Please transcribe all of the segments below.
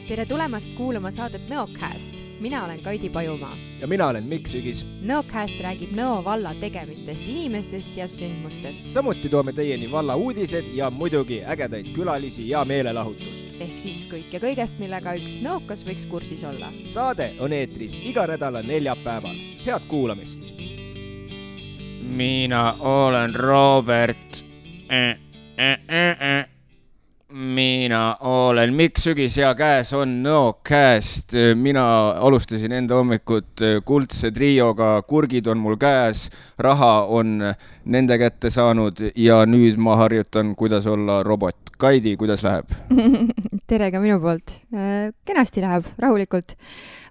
Tere tulemast kuulama saadet Nõocast. Mina olen Kaidi Pajumaa. Ja mina olen Mikk Sügis. Nõocast räägib Nõo valla tegemistest, inimestest ja sündmustest. Samuti toome teieni valla uudised ja muidugi ägedaid külalisi ja meelelahutust. Ehk siis kõik ja kõigest, millega üks nõokas võiks kursis olla. Saade on eetris iga nädala neljapäeval. Head kuulamist! Mina olen Robert. Mina olen Mikk Sügis ja käes on Nõocast. Mina alustasin enda hommikut kuldse trioga, kurgid on mul käes, raha on nende kätte saanud ja nüüd ma harjutan, kuidas olla robot. Kaidi, kuidas läheb? Tere ka minu poolt. Kenasti läheb, rahulikult.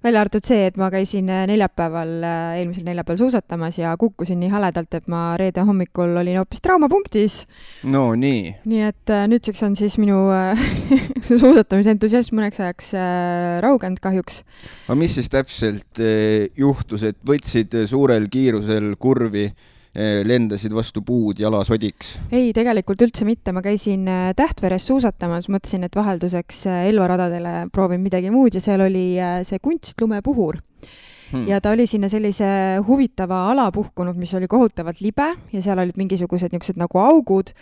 Välja arvatud see, et ma käisin eelmisel neljapäeval suusatamas ja kukkusin nii haledalt, et ma reede hommikul olin hoopis traumapunktis. No nii. Nii et nüüdseks on siis minu suusatamise entusiasm mõneks ajaks raugend kahjuks. Aga mis siis täpselt juhtus, et võtsid suurel kiirusel kurvi, lendasid vastu puud jalasodiks? Ei, tegelikult üldse mitte. Ma käisin Tähtveres suusatamas, mõtlesin, et vahelduseks Elva-radadele proovin midagi muud ja seal oli see kunstlumepuhur. Ja ta oli sinna sellise huvitava ala puhkunud, mis oli kohutavalt libe ja seal olid mingisugused niisugused nagu augud.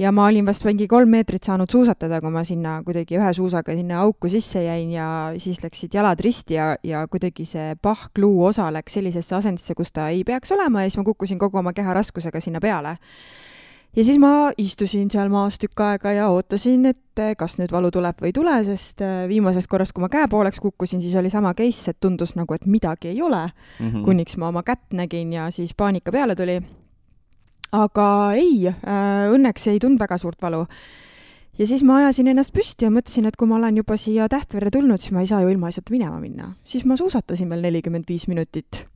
Ja ma olin vast mingi 3 meetrit saanud suusatada, kui ma sinna kuidagi ühe suusaga sinna auku sisse jäin ja siis läksid jalad risti ja kuidagi see pahkluu osa läks sellisesse asendisse, kus ta ei peaks olema ja siis ma kukkusin kogu oma keha raskusega sinna peale. Ja siis ma istusin seal maas tükk aega ja ootasin, et kas nüüd valu tuleb või ei tule, sest viimasest korrast, kui ma käe pooleks kukkusin, siis oli sama case, et tundus nagu, et midagi ei ole, kuniks ma oma kätt nägin ja siis paanika peale tuli. Aga ei, õnneks ei tund väga suurt valu. Ja siis ma ajasin ennast püsti ja mõtlesin, et kui ma olen juba siia Tähtvere tulnud, siis ma ei saa ju ilma asjata minema minna. Siis ma suusatasin veel 45 minutit.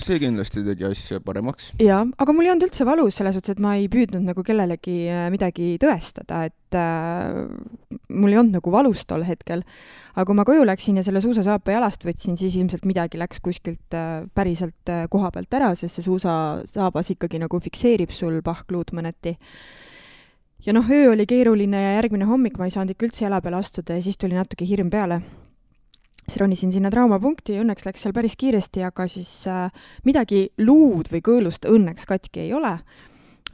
See kindlasti tegi asja paremaks. Ja, aga mul ei olnud üldse valus selles otsas, et ma ei püüdnud nagu kellelegi midagi tõestada, et mul ei olnud nagu valus tol hetkel. Aga kui ma koju läksin ja selle suusasaapa jalast võtsin, siis ilmselt midagi läks kuskilt päriselt koha pealt ära, sest see suusasaabas ikkagi nagu fikseerib sul pahkluud mõneti. Ja öö oli keeruline ja järgmine hommik ma ei saanud ikka üldse jala peale astuda ja siis tuli natuke hirm peale. Siis ronisin sinna traumapunkti ja õnneks läks seal päris kiiresti, aga siis midagi luud või kõõlust õnneks katki ei ole.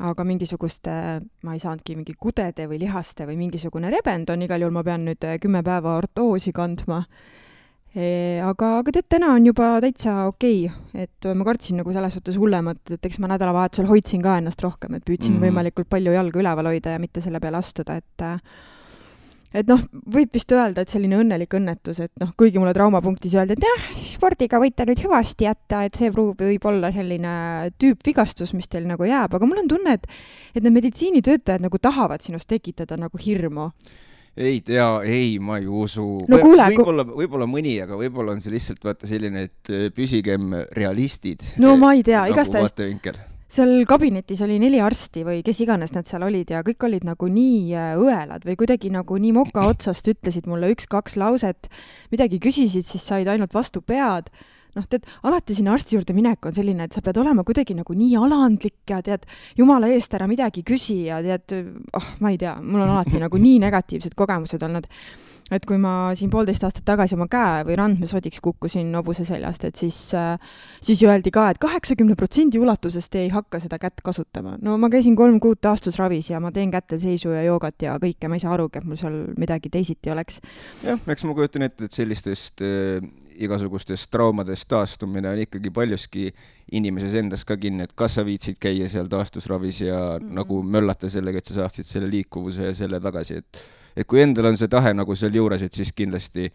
Aga mingisugust, ma ei saanudki mingi kudede või lihaste või mingisugune rebend on, igal juhul ma pean nüüd 10 päeva ortoosi kandma. Aga tead, täna on juba täitsa okei, et ma kartsin nagu selles suhtes hullemat, et eks ma nädalavahetusel hoidsin ka ennast rohkem, et püüdsin võimalikult palju jalga üleval hoida ja mitte selle peale astuda, et võib vist öelda, et selline õnnelik õnnetus, et kuigi mulle traumapunktis öelda, et jah, spordiga võite nüüd hüvasti jätta, et see võib olla selline tüüpvigastus, mis teil nagu jääb, aga mul on tunne, et need meditsiinitöötajad nagu tahavad sinust tekitada nagu hirmu. Ei, ma ei usu. No kuule, võib-olla mõni, aga võib-olla on see lihtsalt vaata selline, et püsigem realistid. No ma ei tea, nagu igastahes. Seal kabinetis oli 4 arsti või kes iganes nad seal olid ja kõik olid nagu nii õelad või kuidagi nagu nii moka otsast ütlesid mulle 1-2 lauset, midagi küsisid, siis said ainult vastu pead. Tead, alati sinna arsti juurde minek on selline, et sa pead olema kuidagi nagu nii alandlik ja tead, jumala eest ära midagi küsi ja tead, ma ei tea, mul on alati nagu nii negatiivsed kogemused olnud. Et kui ma siin 1,5 aastat tagasi oma käe või randmesodiks kukkusin nobuse seljast, et siis öeldi ka, et 80% ulatusest ei hakka seda kätt kasutama. No ma käisin 3 kuud taastusravis ja ma teen kätel seisu ja joogat ja kõike, ma ei saa arugi, et mul seal midagi teisiti oleks. Jah, eks ma kujutan ette, et sellistest igasugustest traumadest taastumine on ikkagi paljuski inimeses endas ka kinni, et kas sa viitsid käia seal taastusravis ja nagu möllata sellega, et sa saaksid selle liikuvuse ja selle tagasi, et kui endal on see tahe nagu seal juures, et siis kindlasti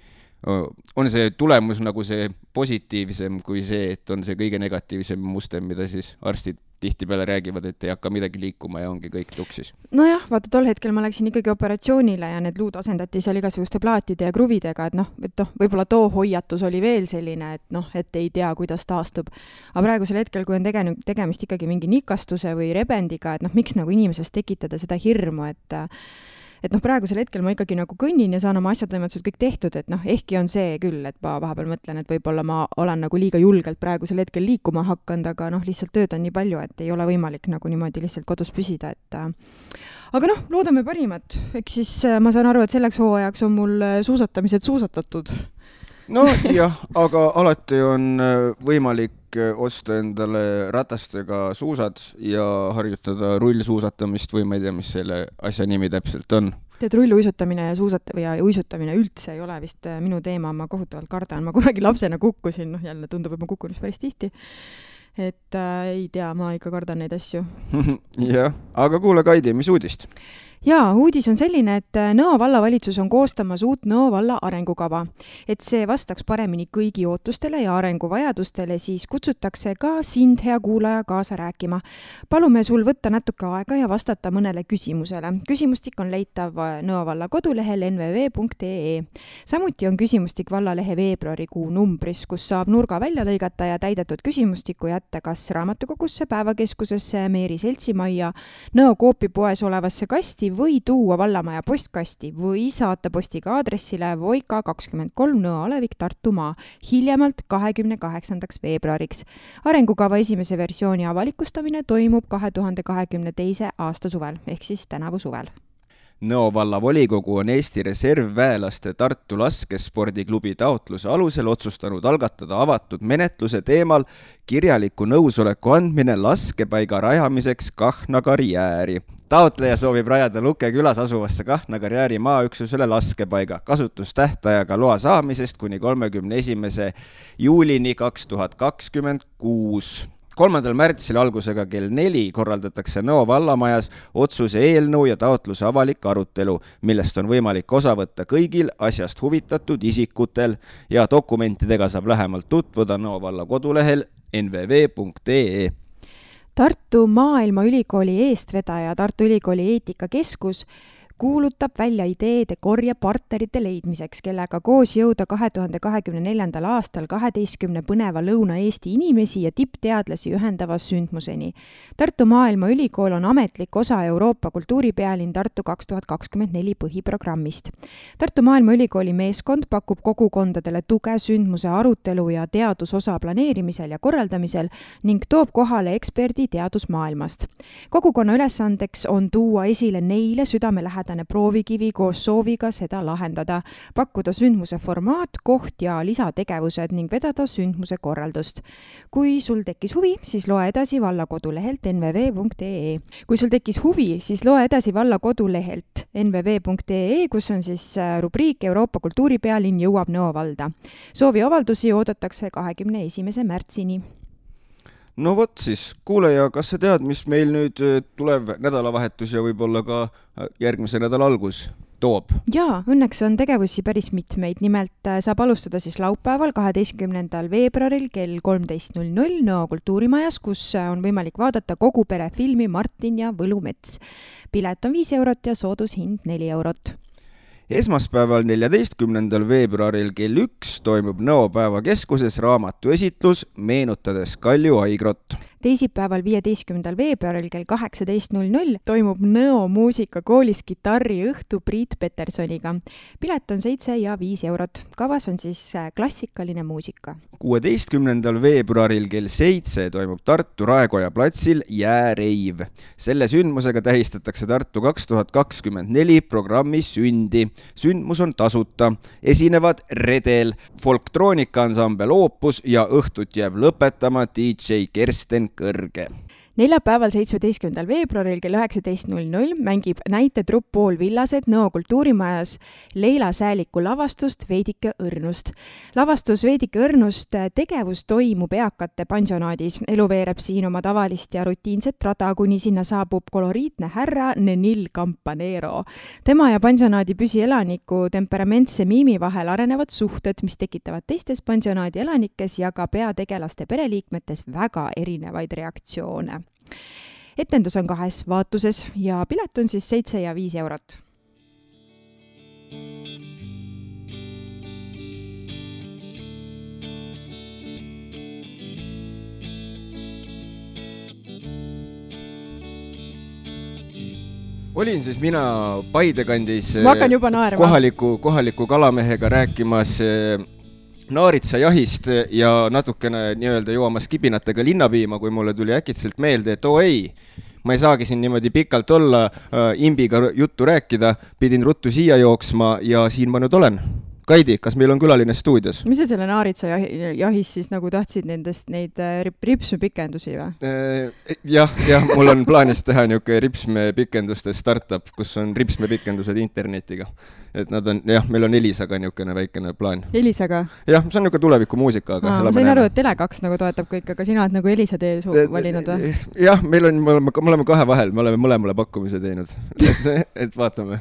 on see tulemus nagu see positiivsem kui see, et on see kõige negatiivsem muster, mida siis arstid tihtipeale räägivad, et ei hakka midagi liikuma ja ongi kõik tuksis. Nojah, vaata tol hetkel ma läksin ikkagi operatsioonile ja need luud asendati seal igasuguste plaatide ja kruvidega, et võib-olla too hoiatus oli veel selline, et ei tea, kuidas taastub. Aga praegusel hetkel, kui on tegemist ikkagi mingi nikastuse või rebendiga, et miks nagu inimesest tekitada seda hirmu, et noh, praegusel hetkel ma ikkagi nagu kõnnin ja saan oma asjatoimetused kõik tehtud, et noh, ehkki on see küll, et ma vahepeal mõtlen, et võib-olla ma olen nagu liiga julgelt praegusel hetkel liikuma hakanud, aga noh, lihtsalt tööd on nii palju, et ei ole võimalik nagu niimoodi lihtsalt kodus püsida, et aga noh, loodame parimat. Eks siis ma saan aru, et selleks hooajaks on mul suusatamised suusatatud. No jah, aga alati on võimalik osta endale ratastega suusad ja harjutada rullsuusatamist või ma ei tea, mis selle asja nimi täpselt on. Tead, rulluisutamine ja uisutamine üldse ei ole vist minu teema, ma kohutavalt kardan. Ma kunagi lapsena kukkusin, noh jälle tundub, et ma kukun päris tihti. Et ei tea, ma ikka kardan neid asju. Jah, aga kuule Kaidi, mis uudist? Jaa, uudis on selline, et Nõo vallavalitsus on koostamas uut Nõo valla arengukava. Et see vastaks paremini kõigi ootustele ja arenguvajadustele, siis kutsutakse ka sind, hea kuulaja, kaasa rääkima. Palume sul võtta natuke aega ja vastata mõnele küsimusele. Küsimustik on leitav Nõo valla kodulehel nvv.ee. Samuti on küsimustik vallalehe veebruarikuu numbris, kus saab nurga välja lõigata ja täidetud küsimustiku jätta kas raamatukogusse, päevakeskusesse, Meeri seltsimajja, Nõo koopipoes olevasse kasti või tuua vallamaja postkasti või saata postiga aadressile Voika 23 Nõo Alevik Tartumaa hiljemalt 28. veebruariks. Arengukava esimese versiooni avalikustamine toimub 2022. aasta suvel, ehk siis tänavu suvel. Nõo valla volikogu on Eesti reservväelaste Tartu laskespordiklubi taotluse alusel otsustanud algatada avatud menetluse teemal kirjaliku nõusoleku andmine laskepaiga rajamiseks Kahna karjääri. Taotleja soovib rajada Luke külas asuvasse Kahna karjääri maaüksusele laskepaiga kasutustähtajaga loa saamisest kuni 31. juulini 2026. 3. märtsil algusega kell 4 korraldatakse Nõo vallamajas otsuse eelnõu ja taotluse avalik arutelu, millest on võimalik osa võtta kõigil asjast huvitatud isikutel ja dokumentidega saab lähemalt tutvuda Nõo valla kodulehel nvv.ee. Tartu Maailmaülikooli eestvedaja Tartu Ülikooli eetikakeskus kuulutab välja ideede korje partnerite leidmiseks, kellega koos jõuda 2024. aastal 12 põneva Lõuna-Eesti inimesi ja tippteadlasi ühendava sündmuseni. Tartu Maailmaülikool on ametlik osa Euroopa kultuuripealinn Tartu 2024 põhiprogrammist. Tartu Maailmaülikooli meeskond pakub kogukondadele tuge sündmuse arutelu ja teadusosa planeerimisel ja korraldamisel ning toob kohale eksperdi teadusmaailmast. Kogukonna ülesandeks on tuua esile neile südamelähedane proovikivi koos sooviga seda lahendada, pakkuda sündmuse formaat, koht ja lisategevused ning vedada sündmuse korraldust. Kui sul tekkis huvi, siis loe edasi valla kodulehelt nvv.ee. Kui sul tekkis huvi, siis loe edasi valla kodulehelt nvv.ee, kus on siis rubriik Euroopa kultuuripealinn jõuab Nõo valda. Sooviavaldusi oodatakse 21. märtsini. No vot siis, kuulaja, kas sa tead, mis meil nüüd tulev nädalavahetus ja võib-olla ka järgmise nädala algus toob? Jaa, õnneks on tegevusi päris mitmeid. Nimelt saab alustada siis laupäeval 12. veebruaril kell 13.00 Nõo kultuurimajas, kus on võimalik vaadata kogu pere filmi Martin ja Võlumets. Pilet on 5 eurot ja soodushind 4 eurot. Esmaspäeval 14. veebruaril kell 1 toimub Nõo päevakeskuses raamatuesitlus meenutades Kalju Aigrot. Teisipäeval 15. veebruaril kell 18.00 toimub Nõo muusikakoolis kitarriõhtu Priit Petersoniga. Pilet on 7 ja 5 eurot. Kavas on siis klassikaline muusika. 16. veebruaril kell 7 toimub Tartu Raekoja platsil Jääreiv. Selle sündmusega tähistatakse Tartu 2024 programmi sündi. Sündmus on tasuta. Esinevad Redel, folktroonikansambel Opus ja õhtut jääb lõpetama DJ Kersten Kõrge. Neljapäeval 17. veebruaril kell 19.00 mängib näitetrupp Pool Villased Nõo kultuurimajas Leila Sääliku lavastust Veidike õrnust. Lavastus Veidike õrnust tegevus toimub eakate pansionaadis. Elu veereb siin oma tavalist ja rutiinset rada, kuni sinna saabub koloriitne härra Nenil Campanero. Tema ja pansionaadi püsielaniku temperamentse miimi vahel arenevad suhted, mis tekitavad teistes pansionaadi elanikes ja ka peategelaste pereliikmetes väga erinevaid reaktsioone. Etendus on 2 vaatuses ja pilet on siis 7 ja 5 eurot. olin siis mina Paide kandis kohaliku kalamehega rääkimas naaritsajahist ja natukene nii-öelda joomas kibinatega linnapiima, kui mulle tuli äkitselt meelde, et ei, ma ei saagi siin niimoodi pikalt olla, imbiga juttu rääkida, pidin ruttu siia jooksma ja siin ma nüüd olen. Kaidi, kas meil on külaline stuudios? Mis sa selle naaritsajahis siis nagu tahtsid neid ripsmepikendusi või? Jah, mul on plaanis teha niuke ripsmepikenduste startup, kus on ripsmepikendused internetiga. Et nad on, meil on Elisaga niukene väikene plaan. Elisaga? Jah, see on niuke tuleviku muusika, aga... ma sain aru, et Tele2 nagu toetab kõik, aga sina oled nagu Elisa tee valinud või? Jah, me oleme kahe vahel, me oleme mõlemale pakkumise teinud. Et vaatame.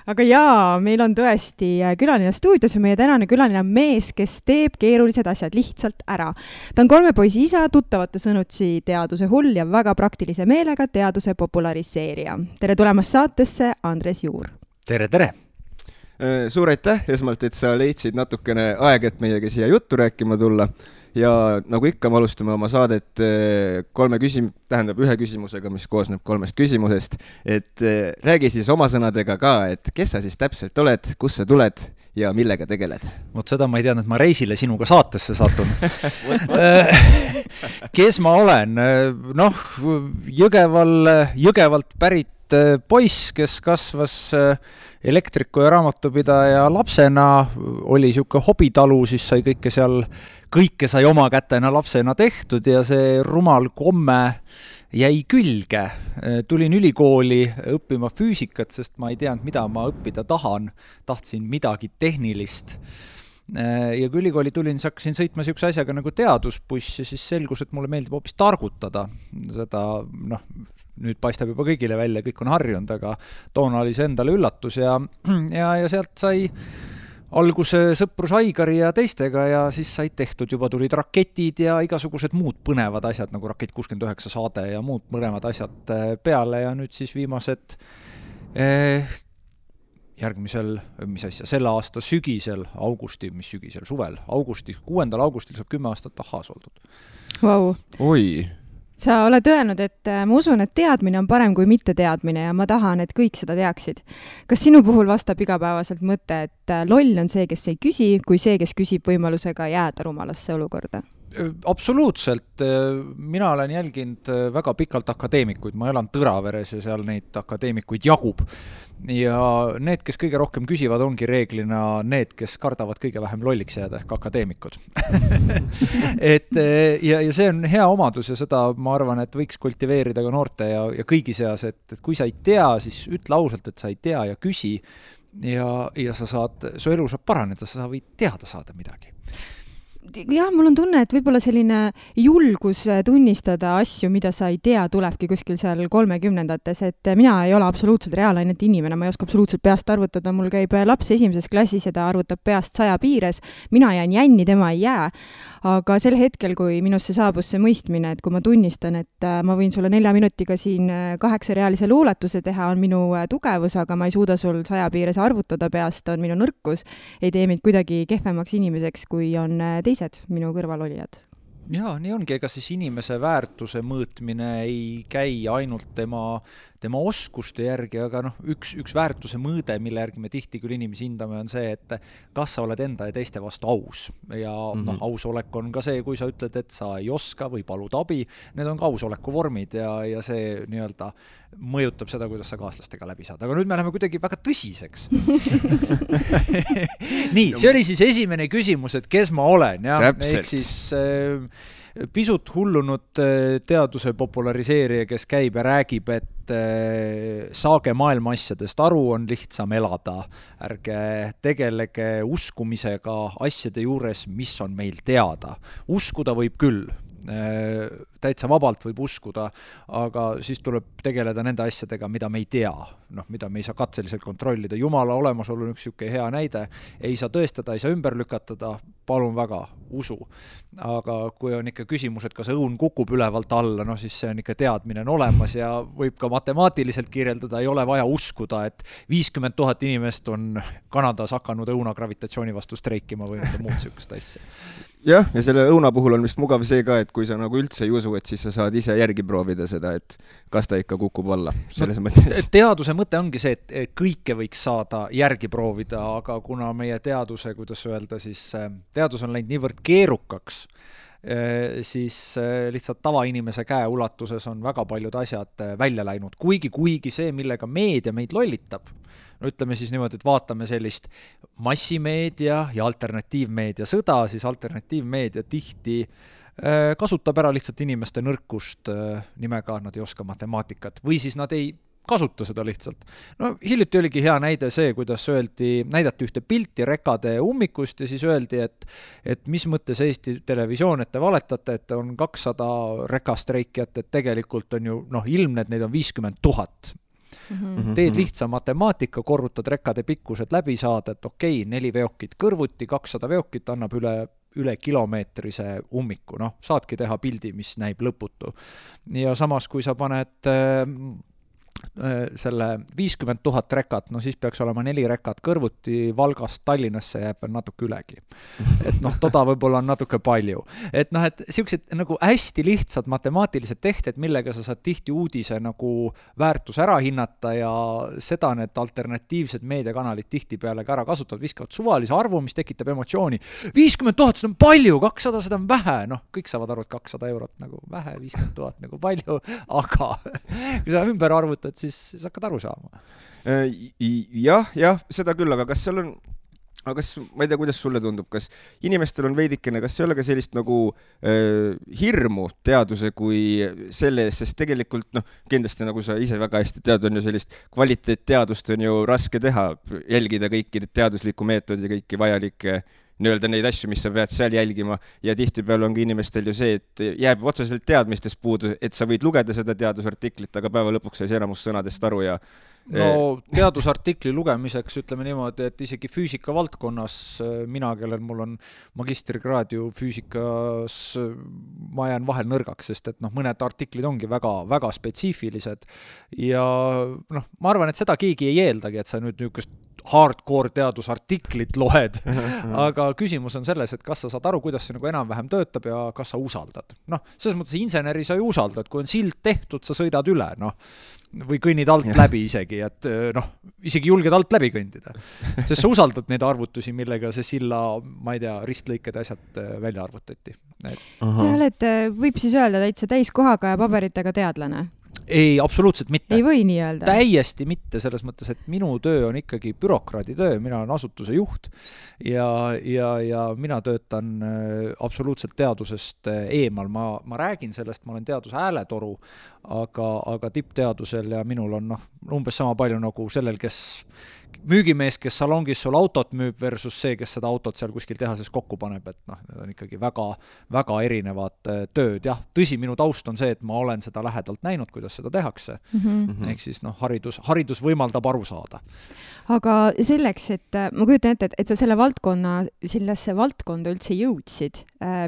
Aga jaa, meil on tõesti külaline stuudios ja meie tänane külaline on mees, kes teeb keerulised asjad lihtsalt ära. Ta on 3 poisi isa, tuttavate sõnutsi teaduse hull ja väga praktilise meelega teaduse populariseerija. Tere tulemast saatesse, Andres Juur. Tere! Suur aitäh esmalt, et sa leidsid natukene aeg, et meiega siia juttu rääkima tulla. Ja nagu ikka, me alustame oma saadet ühe küsimusega, mis koosneb 3 küsimusest. Et räägi siis oma sõnadega ka, et kes sa siis täpselt oled, kus sa tuled ja millega tegeled? Vot seda ma ei teadnud, et ma reisile sinuga saatesse satun. Kes ma olen? Jõgevalt pärit poiss, kes kasvas elektriku ja raamatupidaja lapsena, oli siuke hobitalu, siis kõike sai oma kätena lapsena tehtud ja see rumal komme jäi külge. Tulin ülikooli õppima füüsikat, sest ma ei teadnud, mida ma õppida tahan. Tahtsin midagi tehnilist. Ja kui ülikooli tulin, siis hakkasin sõitma siukse asjaga nagu teadusbuss ja siis selgus, et mulle meeldib hoopis targutada. Seda, nüüd paistab juba kõigile välja, kõik on harjunud, aga toona oli see endale üllatus ja sealt sai alguse sõprus Aigari ja teistega ja siis said tehtud, juba tulid raketid ja igasugused muud põnevad asjad, nagu Rakett 69 saade ja muud põnevad asjad peale ja nüüd siis viimased selle aasta sügisel, suvel, 6. augustil saab 10 aastat tahaas oldud. Wow. Oi! Sa oled öelnud, et ma usun, et teadmine on parem kui mitte teadmine ja ma tahan, et kõik seda teaksid. Kas sinu puhul vastab igapäevaselt mõte, et loll on see, kes ei küsi, kui see, kes küsib võimalusega jääda rumalasse olukorda? Absoluutselt. Mina olen jälginud väga pikalt akadeemikuid. Ma elan Tõraveres ja seal neid akadeemikuid jagub. Ja need, kes kõige rohkem küsivad, ongi reeglina need, kes kardavad kõige vähem lolliks jääda, ehk akadeemikud. ja see on hea omadus ja seda ma arvan, et võiks kultiveerida ka noorte ja kõigi seas, et kui sa ei tea, siis ütle ausalt, et sa ei tea ja küsi ja su elu saab paraneda, sa võid teada saada midagi. Jah, mul on tunne, et võib-olla selline julgus tunnistada asju, mida sa ei tea, tulebki kuskil seal 30-ndates, et mina ei ole absoluutselt reaalainete inimene, ma ei oska absoluutselt peast arvutada, mul käib laps 1. klassis ja ta arvutab peast 100 piires, mina jään jänni, tema ei jää, aga sel hetkel, kui minusse saabus see mõistmine, et kui ma tunnistan, et ma võin sulle 4 minutiga siin 8-reaalise luuletuse teha, on minu tugevus, aga ma ei suuda sul 100 piires arvutada peast, on minu nõrkus, ei tee mind kuidagi kehvemaks inimeseks, kui on teised minu kõrvalolijad. Jaa, nii ongi, ega siis inimese väärtuse mõõtmine ei käi ainult tema oskuste järgi, aga üks väärtuse mõõde, mille järgi me tihti küll inimesi hindame, on see, et kas sa oled enda ja teiste vastu aus. Ja ausolek on ka see, kui sa ütled, et sa ei oska või palud abi, need on ka ausoleku vormid ja see nii-öelda mõjutab seda, kuidas sa kaaslastega läbi saad. Aga nüüd me läheme kuidagi väga tõsiseks. Nii, see oli siis esimene küsimus, et kes ma olen. Ja? Ehk siis pisut hullunud teaduse populariseerija, kes käib ja räägib, et saage maailma asjadest aru, on lihtsam elada. Ärge tegelege uskumisega asjade juures, mis on meil teada. Uskuda võib küll. Täitsa vabalt võib uskuda, aga siis tuleb tegeleda nende asjadega, mida me ei tea, mida me ei saa katseliselt kontrollida. Jumala olemasolu on üks siuke hea näide, ei saa tõestada, ei saa ümber lükatada, palun väga, usu. Aga kui on ikka küsimus, et kas õun kukub ülevalt alla, siis see on ikka teadmine on olemas ja võib ka matemaatiliselt kirjeldada, ei ole vaja uskuda, et 50 000 inimest on Kanadas hakanud õuna gravitatsiooni vastu streikima või muud siukest asja. jah, ja selle õuna puhul on vist mugav see ka, et kui sa nagu üldse ei usu, et siis sa saad ise järgi proovida seda, et kas ta ikka kukub alla selles mõttes. Teaduse mõte ongi see, et kõike võiks saada järgi proovida, aga kuna meie teaduse, kuidas öelda, siis teadus on läinud niivõrd keerukaks, siis lihtsalt tavainimese käe ulatuses on väga paljud asjad välja läinud. Kuigi see, millega meedia meid lollitab, no ütleme siis niimoodi, et vaatame sellist massimeedia ja alternatiivmeedia sõda, siis alternatiivmeedia tihti kasutab ära lihtsalt inimeste nõrkust nimega, nad ei oska matemaatikat või siis nad ei kasuta seda lihtsalt. No hiljuti oligi hea näide see, kuidas näidati ühte pilti rekade ummikust ja siis öeldi, et mis mõttes Eesti Televisioon, et te valetate, et on 200 rekastreikijat, et tegelikult on ju ilmne, et neid on 50 000. Teed lihtsa matemaatika, korrutad rekade pikkused läbi saada, et 4 veokit kõrvuti, 200 veokit annab üle kilomeetrise ummiku, saadki teha pildi, mis näib lõputu. Ja samas, kui sa paned selle 50 000 rekat, siis peaks olema 4 rekat kõrvuti, Valgast Tallinnasse jääb veel natuke ülegi. Et toda võib-olla on natuke palju. Et siuksed nagu hästi lihtsad matemaatilised tehted, millega sa saad tihti uudise nagu väärtus ära hinnata ja seda need alternatiivsed meediakanalid tihtipeale ka ära kasutavad, viskavad suvalise arvu, mis tekitab emotsiooni. 50 000, seda on palju, 200, seda on vähe. Kõik saavad aru, et 200 eurot nagu vähe, 50 000 nagu palju, aga kui sa ümber arvutad, siis hakkad aru saama. Jah, seda küll, aga kas seal on, ma ei tea, kuidas sulle tundub, kas inimestel on veidikene, kas ei ole ka sellist nagu hirmu teaduse kui selle eest, sest tegelikult kindlasti nagu sa ise väga hästi tead, on ju sellist kvaliteetteadust on ju raske teha, jälgida kõiki teaduslikku meetodi ja kõiki vajalikke neid asju, mis sa pead seal jälgima ja tihtipeale on ka inimestel ju see, et jääb otseselt teadmistest puudu, et sa võid lugeda seda teadusartiklit, aga päeva lõpuks sai enamus sõnadest aru ja teadusartikli lugemiseks ütleme niimoodi, et isegi füüsika valdkonnas mina, kellel mul on magistrikraad ju füüsikas, ma jään vahel nõrgaks, sest et mõned artiklid ongi väga, väga spetsiifilised ja ma arvan, et seda keegi ei eeldagi, et sa nüüd niisugust hardcore teadusartiklit loed, aga küsimus on selles, et kas sa saad aru, kuidas see nagu enam-vähem töötab ja kas sa usaldad. Selles mõttes inseneri sa ju usaldad, kui on sild tehtud, sa sõidad üle, või kõnnid alt läbi isegi, et isegi julged alt läbi kõndida. Sest sa usaldad neid arvutusi, millega see silla, ma ei tea, ristlõiked asjad välja arvutati. Sa oled, võib siis öelda täitsa täiskohaga ja paberitega teadlane? Ei, absoluutselt mitte. Ei või nii öelda? Täiesti mitte, selles mõttes, et minu töö on ikkagi bürokraadi töö, mina olen asutuse juht ja mina töötan absoluutselt teadusest eemal. Ma räägin sellest, ma olen teaduse hääletoru, aga tippteadusel ja minul on umbes sama palju nagu sellel, kes müügimees, kes salongis sul autot müüb versus see, kes seda autot seal kuskil tehases kokku paneb, et need on ikkagi väga, väga erinevad tööd. Jah, tõsi, minu taust on see, et ma olen seda lähedalt näinud, kuidas seda tehakse. Ehk siis haridus võimaldab aru saada. Aga selleks, et ma kujutan ette, et sa sellesse valdkonda üldse jõudsid,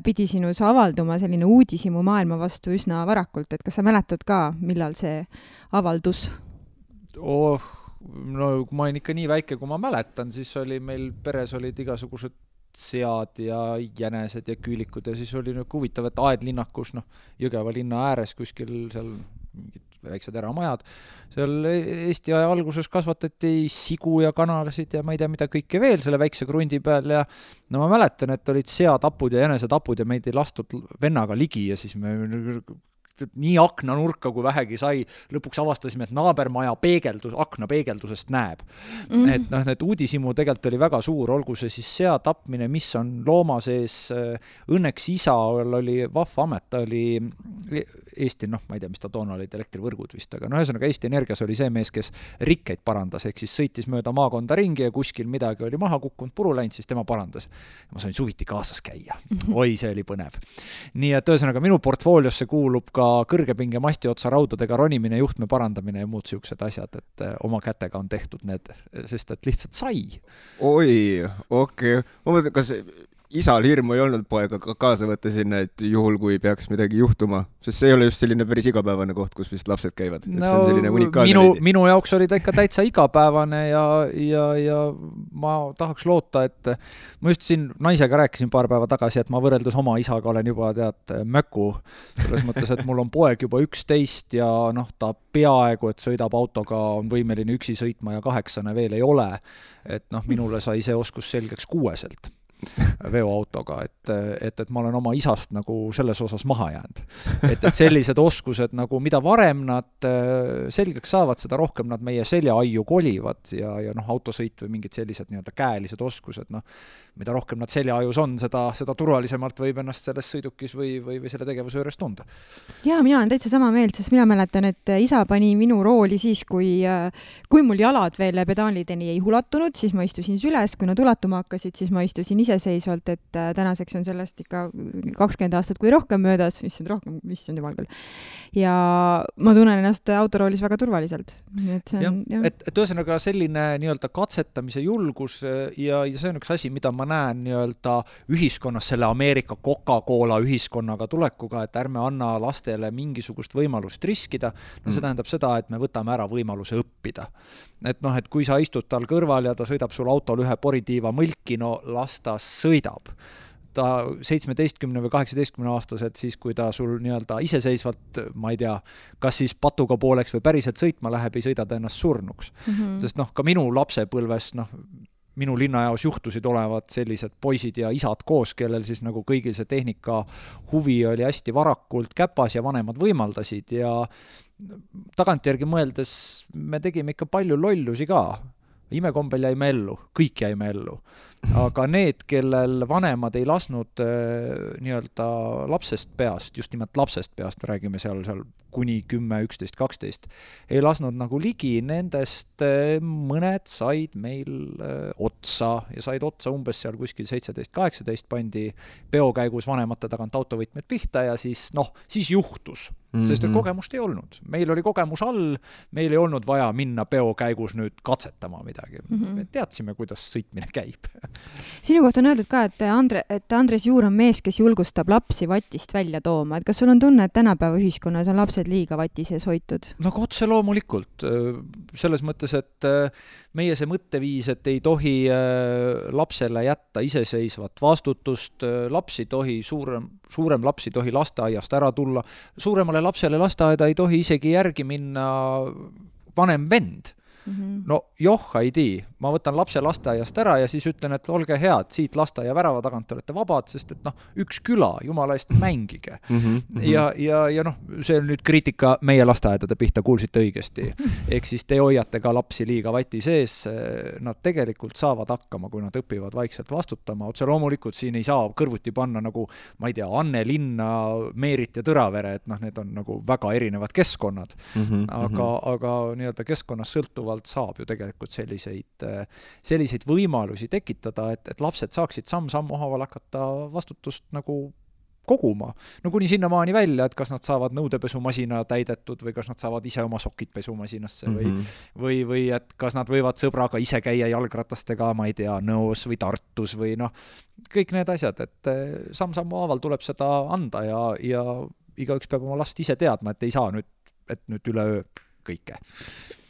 pidi sinus avalduma selline uudishimu maailma vastu üsna varakult, et kas sa mäletad ka, millal see avaldus? Kui ma olin ikka nii väike, kui ma mäletan, siis oli meil peres olid igasugused sead ja jänesed ja küülikud ja siis oli huvitav, et Aedlinnakus, Jõgeva linna ääres kuskil seal mingid väiksed eramajad, seal Eesti aja alguses kasvatati sigu ja kanalasid ja ma ei tea, mida kõike veel selle väikse krundi peal ja ma mäletan, et olid seatapud ja jänesetapud ja meid ei lastud vennaga ligi ja siis me nii aknanurka kui vähegi sai, lõpuks avastasime, et naabermaja akna peegeldusest näeb. Et need uudishimu tegelikult oli väga suur, olgu see siis sea tapmine, mis on looma sees. Õnneks isa oli vahva amet, ta oli Eesti, ma ei tea, mis ta toona olid, elektrivõrgud vist, aga ühesõnaga Eesti Energias oli see mees, kes rikkeid parandas, ehk siis sõitis mööda maakonda ringi ja kuskil midagi oli maha kukkunud, puru läinud, siis tema parandas. Ma sain suviti kaasas käia. Oi, see oli põnev. Nii et ühesõnaga minu portfooliosse kuulub ka kõrgepinge masti otsa raudadega ronimine, juhtme parandamine ja muud siuksed asjad, et oma kätega on tehtud need, sest et lihtsalt sai. Oi, okei. Ma mõtlen, kas isal hirmu ei olnud poega kaasa võtta sinna, et juhul, kui peaks midagi juhtuma, sest see ei ole just selline päris igapäevane koht, kus vist lapsed käivad. No, see on selline unikaalne minu jaoks oli ta ikka täitsa igapäevane ja ma tahaks loota, et ma just siin naisega rääkisin paar päeva tagasi, et ma võrreldes oma isaga olen juba möku, selles mõttes, et mul on poeg juba 11 ja ta peaaegu, et sõidab autoga, on võimeline üksi sõitma ja 8 veel ei ole, et minule sai see oskus selgeks 6 veoautoga, et ma olen oma isast nagu selles osas maha jäänud. Et sellised oskused nagu, mida varem nad selgeks saavad, seda rohkem nad meie seljaaiu kolivad ja autosõit või mingid sellised käelised oskused, mida rohkem nad seljaajus on, seda turvalisemalt võib ennast selles sõidukis või selle tegevuse juures tunda. Jaa, mina olen täitsa sama meelt, sest mina mäletan, et isa pani minu rooli siis, kui mul jalad veel pedaalideni ei ulatunud, siis ma istusin süles, kui nad ulatuma hakkasid, siis ma istusin iseseisvalt, et tänaseks on sellest ikka 20 aastat kui rohkem möödas, mis on jumal küll. Ja ma tunnen ennast autoroolis väga turvaliselt. Et ühesõnaga selline katsetamise julgus ja see on üks asi, mida ma näen ühiskonnas selle Ameerika Coca-Cola ühiskonnaga tulekuga, et ärme anna lastele mingisugust võimalust riskida. See tähendab seda, et me võtame ära võimaluse õppida. Et kui sa istud tal kõrval ja ta sõidab sul autol ühe poritiiva mõlki, las ta sõidab. Ta 17 või 18 aastaselt siis, kui ta sul iseseisvalt, ma ei tea, kas siis patuga pooleks või päriselt sõitma läheb, ei sõida ta ennast surnuks. Sest ka minu lapsepõlves, minu linnajaos juhtusid olevat sellised poisid ja isad koos, kellel siis nagu kõigil see tehnika huvi oli hästi varakult käpas ja vanemad võimaldasid ja tagantjärgi mõeldes me tegime ikka palju lollusi ka. Imekombel jäime ellu, kõik jäime ellu. Aga need, kellel vanemad ei lasnud lapsest peast, just nimelt lapsest peast, räägime seal kuni 10, 11, 12, ei lasnud nagu ligi, nendest mõned said meil otsa ja said otsa umbes seal kuskil 17-18 pandi peokäigus vanemate tagant autovõtmed pihta ja siis juhtus. Sest kogemust ei olnud. Meil oli kogemus all, meil ei olnud vaja minna peokäigus nüüd katsetama midagi. Me teadsime, kuidas sõitmine käib. Sinu kohta on öeldud ka, et Andres Juur on mees, kes julgustab lapsi vatist välja tooma. Et kas sul on tunne, et tänapäeva ühiskonnas on lapsed liiga vati sees hoitud? Otse loomulikult. Selles mõttes, et meie see mõtteviis, et ei tohi lapsele jätta iseseisvat vastutust, lapsi tohi, suurem lapsi tohi lasteaiast ära tulla, suuremale lapsele lasteaeda ei tohi isegi järgi minna vanem vend. Ei tii. Ma võtan lapse lasteaiast ära ja siis ütlen, et olge head, siit lasteaia värava tagant olete vabad, sest et üks küla, jumala eest mängige. Ja see on nüüd kriitika meie lasteaedade pihta, kuulsite õigesti. Ehk siis te hoiate ka lapsi liiga vati sees, nad tegelikult saavad hakkama, kui nad õpivad vaikselt vastutama. Otse loomulikult siin ei saa kõrvuti panna nagu, ma ei tea, Anne Linna, Meerit ja Tõravere, et need on nagu väga erinevad keskkonnad. Aga keskkonnas sõltuvalt saab ju tegelikult selliseid võimalusi tekitada, et lapsed saaksid samm-sammu haaval hakata vastutust nagu koguma. Kuni sinnamaani välja, et kas nad saavad nõudepesumasina täidetud või kas nad saavad ise oma sokid pesumasinasse või et kas nad võivad sõbraga ise käia jalgratastega, ma ei tea, Nõos või Tartus või kõik need asjad, et samm-sammu haaval tuleb seda anda ja igaüks peab oma last ise teadma, et ei saa nüüd üleöö kõike.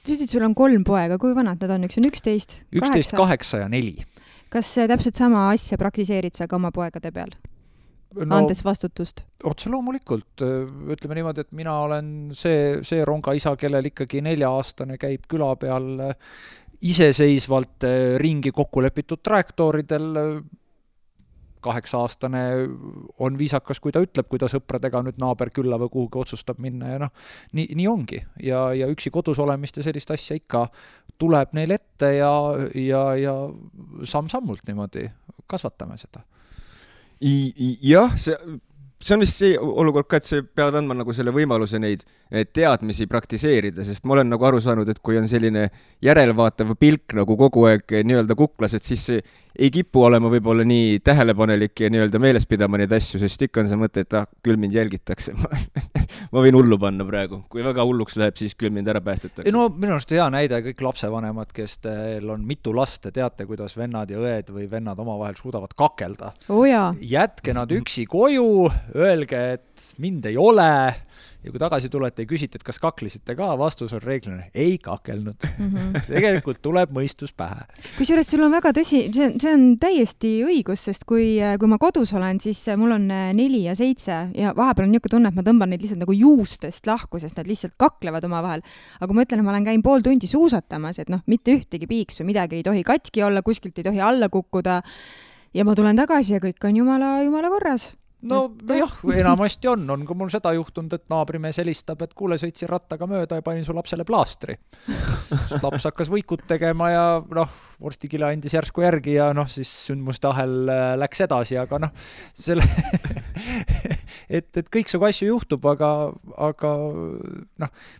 Sul on 3 poega, kui vanad nad on? Üks on 11, 8 ja 4. Kas täpselt sama asja praktiseerid sa ka oma poegade peal? Andes vastutust? Otse loomulikult. Ütleme niimoodi, et mina olen see rongaisa, kellel ikkagi 4-aastane käib küla peal iseseisvalt ringi kokkulepitud trajektooridel. 8-aastane on viisakas, kui ta ütleb, kui ta sõpradega nüüd naaber külla või kuhugi otsustab minna ja nii ongi. Ja üksi kodus olemist ja sellist asja ikka tuleb neil ette ja samm-sammult niimoodi kasvatame seda. Jah, see on vist see olukord ka, et sa pead andma nagu selle võimaluse neid teadmisi praktiseerida, sest ma olen nagu aru saanud, et kui on selline järelvaatav pilk nagu kogu aeg nii-öelda kuklas, et siis ei kipu olema võib-olla nii tähelepanelik ja nii-öelda meeles pidama neid asju, sest ikka on see mõte, et küll mind jälgitakse. Ma võin hullu panna praegu. Kui väga hulluks läheb, siis küll mind ära päästetakse. No minu arust hea näide kõik lapsevanemad, kes teil on mitu last, teate, kuidas vennad ja õed või vennad omavahel suudavad kakelda. Jätke nad üksi koju, öelge, et mind ei ole. Ja kui tagasi tulete ja küsite, et kas kaklisite ka, vastus on reeglina, ei kakelnud. Tegelikult tuleb mõistus pähe. Kusjuures sul on väga tõsi, see on täiesti õigus, sest kui ma kodus olen, siis mul on 4 ja 7 ja vahepeal on niisugune tunne, et ma tõmban neid lihtsalt nagu juustest lahku, sest nad lihtsalt kaklevad omavahel. Aga ma ütlen, et ma olen käin pool tundi suusatamas, et mitte ühtegi piiksu, midagi ei tohi katki olla, kuskilt ei tohi alla kukkuda ja ma tulen tagasi ja kõik on jumala korras. No jah, enamasti on ka mul seda juhtunud, et naabrimees helistab, et kuule, sõitsin rattaga mööda ja panin su lapsele plaastri. Laps hakkas võikut tegema ja vorstikile andis järsku järgi ja siis sündmuste ahel läks edasi, aga selle et kõik su asju juhtub, aga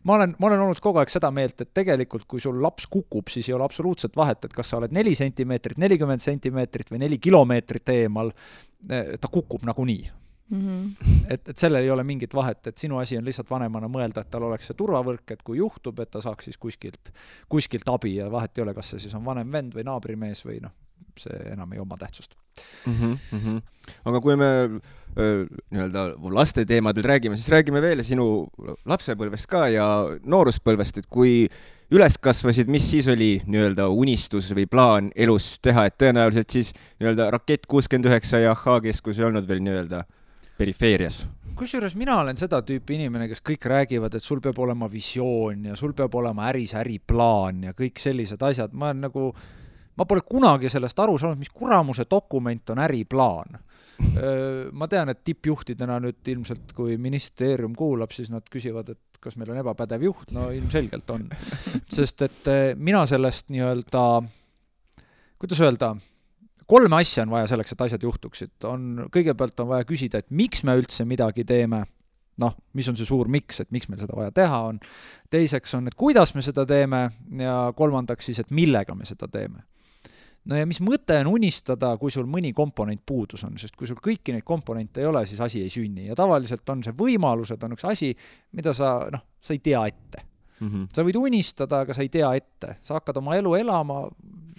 ma olen olnud kogu aeg seda meelt, et tegelikult kui sul laps kukub, siis ei ole absoluutselt vahet, et kas sa oled 4 sentimeetrit, 40 sentimeetrit või 4 kilomeetrit eemal, ta kukub nagunii. Et sellel ei ole mingit vahet, et sinu asi on lihtsalt vanemana mõelda, et tal oleks see turvavõrk, et kui juhtub, et ta saaks siis kuskilt abi ja vahet ei ole, kas see siis on vanem vend või naabrimees või see enam ei oma tähtsust. Aga kui me nii-öelda laste teemadel räägime, siis räägime veel sinu lapsepõlvest ka ja nooruspõlvest, et kui üles kasvasid, mis siis oli nii-öelda unistus või plaan elus teha, et tõenäoliselt siis nii-öelda Rakett 69 ja H-keskus ei olnud veel nii-öelda perifeerias. Kusjuures mina olen seda tüüpi inimene, kes kõik räägivad, et sul peab olema visioon ja sul peab olema äriplaan ja kõik sellised asjad. Ma pole kunagi sellest aru saanud, mis kuramuse dokument on äriplaan. Ma tean, et tippjuhtidena nüüd ilmselt, kui ministeerium kuulab, siis nad küsivad, et kas meil on ebapädev juht, no ilmselgelt on. Sest et mina sellest nii-öelda, kuidas öelda, 3 asja on vaja selleks, et asjad juhtuksid. Kõigepealt on vaja küsida, et miks me üldse midagi teeme, mis on see suur miks, et miks meil seda vaja teha on. Teiseks on, et kuidas me seda teeme ja kolmandaks siis, et millega me seda teeme. No ja mis mõte on unistada, kui sul mõni komponent puudus on, sest kui sul kõiki neid komponente ei ole, siis asi ei sünni. Ja tavaliselt on see võimalused, on üks asi, mida sa ei tea ette. Sa võid unistada, aga sa ei tea ette. Sa hakkad oma elu elama,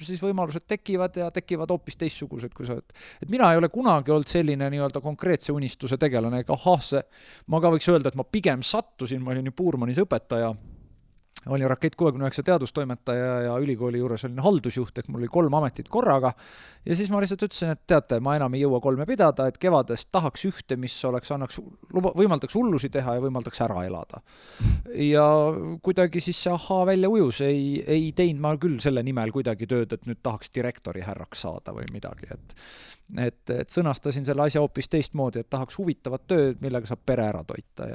siis võimalused tekivad ja tekivad hoopis teistsugused, kui sa oled. Et mina ei ole kunagi olnud selline nii-öelda konkreetse unistuse tegelane, ma ka võiks öelda, et ma pigem sattusin, ma olin ju Puurmanis õpetaja, olin Rakett 69 teadustoimetaja ja ülikooli juures olin haldusjuht, ehk mul oli 3 ametit korraga ja siis ma lihtsalt ütlesin, et teate, ma enam ei jõua 3 pidada, et kevadest tahaks ühte, mis võimaldaks hullusi teha ja võimaldaks ära elada. Ja kuidagi siis see välja ujus, ei teinud ma küll selle nimel kuidagi tööd, et nüüd tahaks direktori härraks saada või midagi, et sõnastasin selle asja hoopis teistmoodi, et tahaks huvitavat tööd, millega saab pere ära toita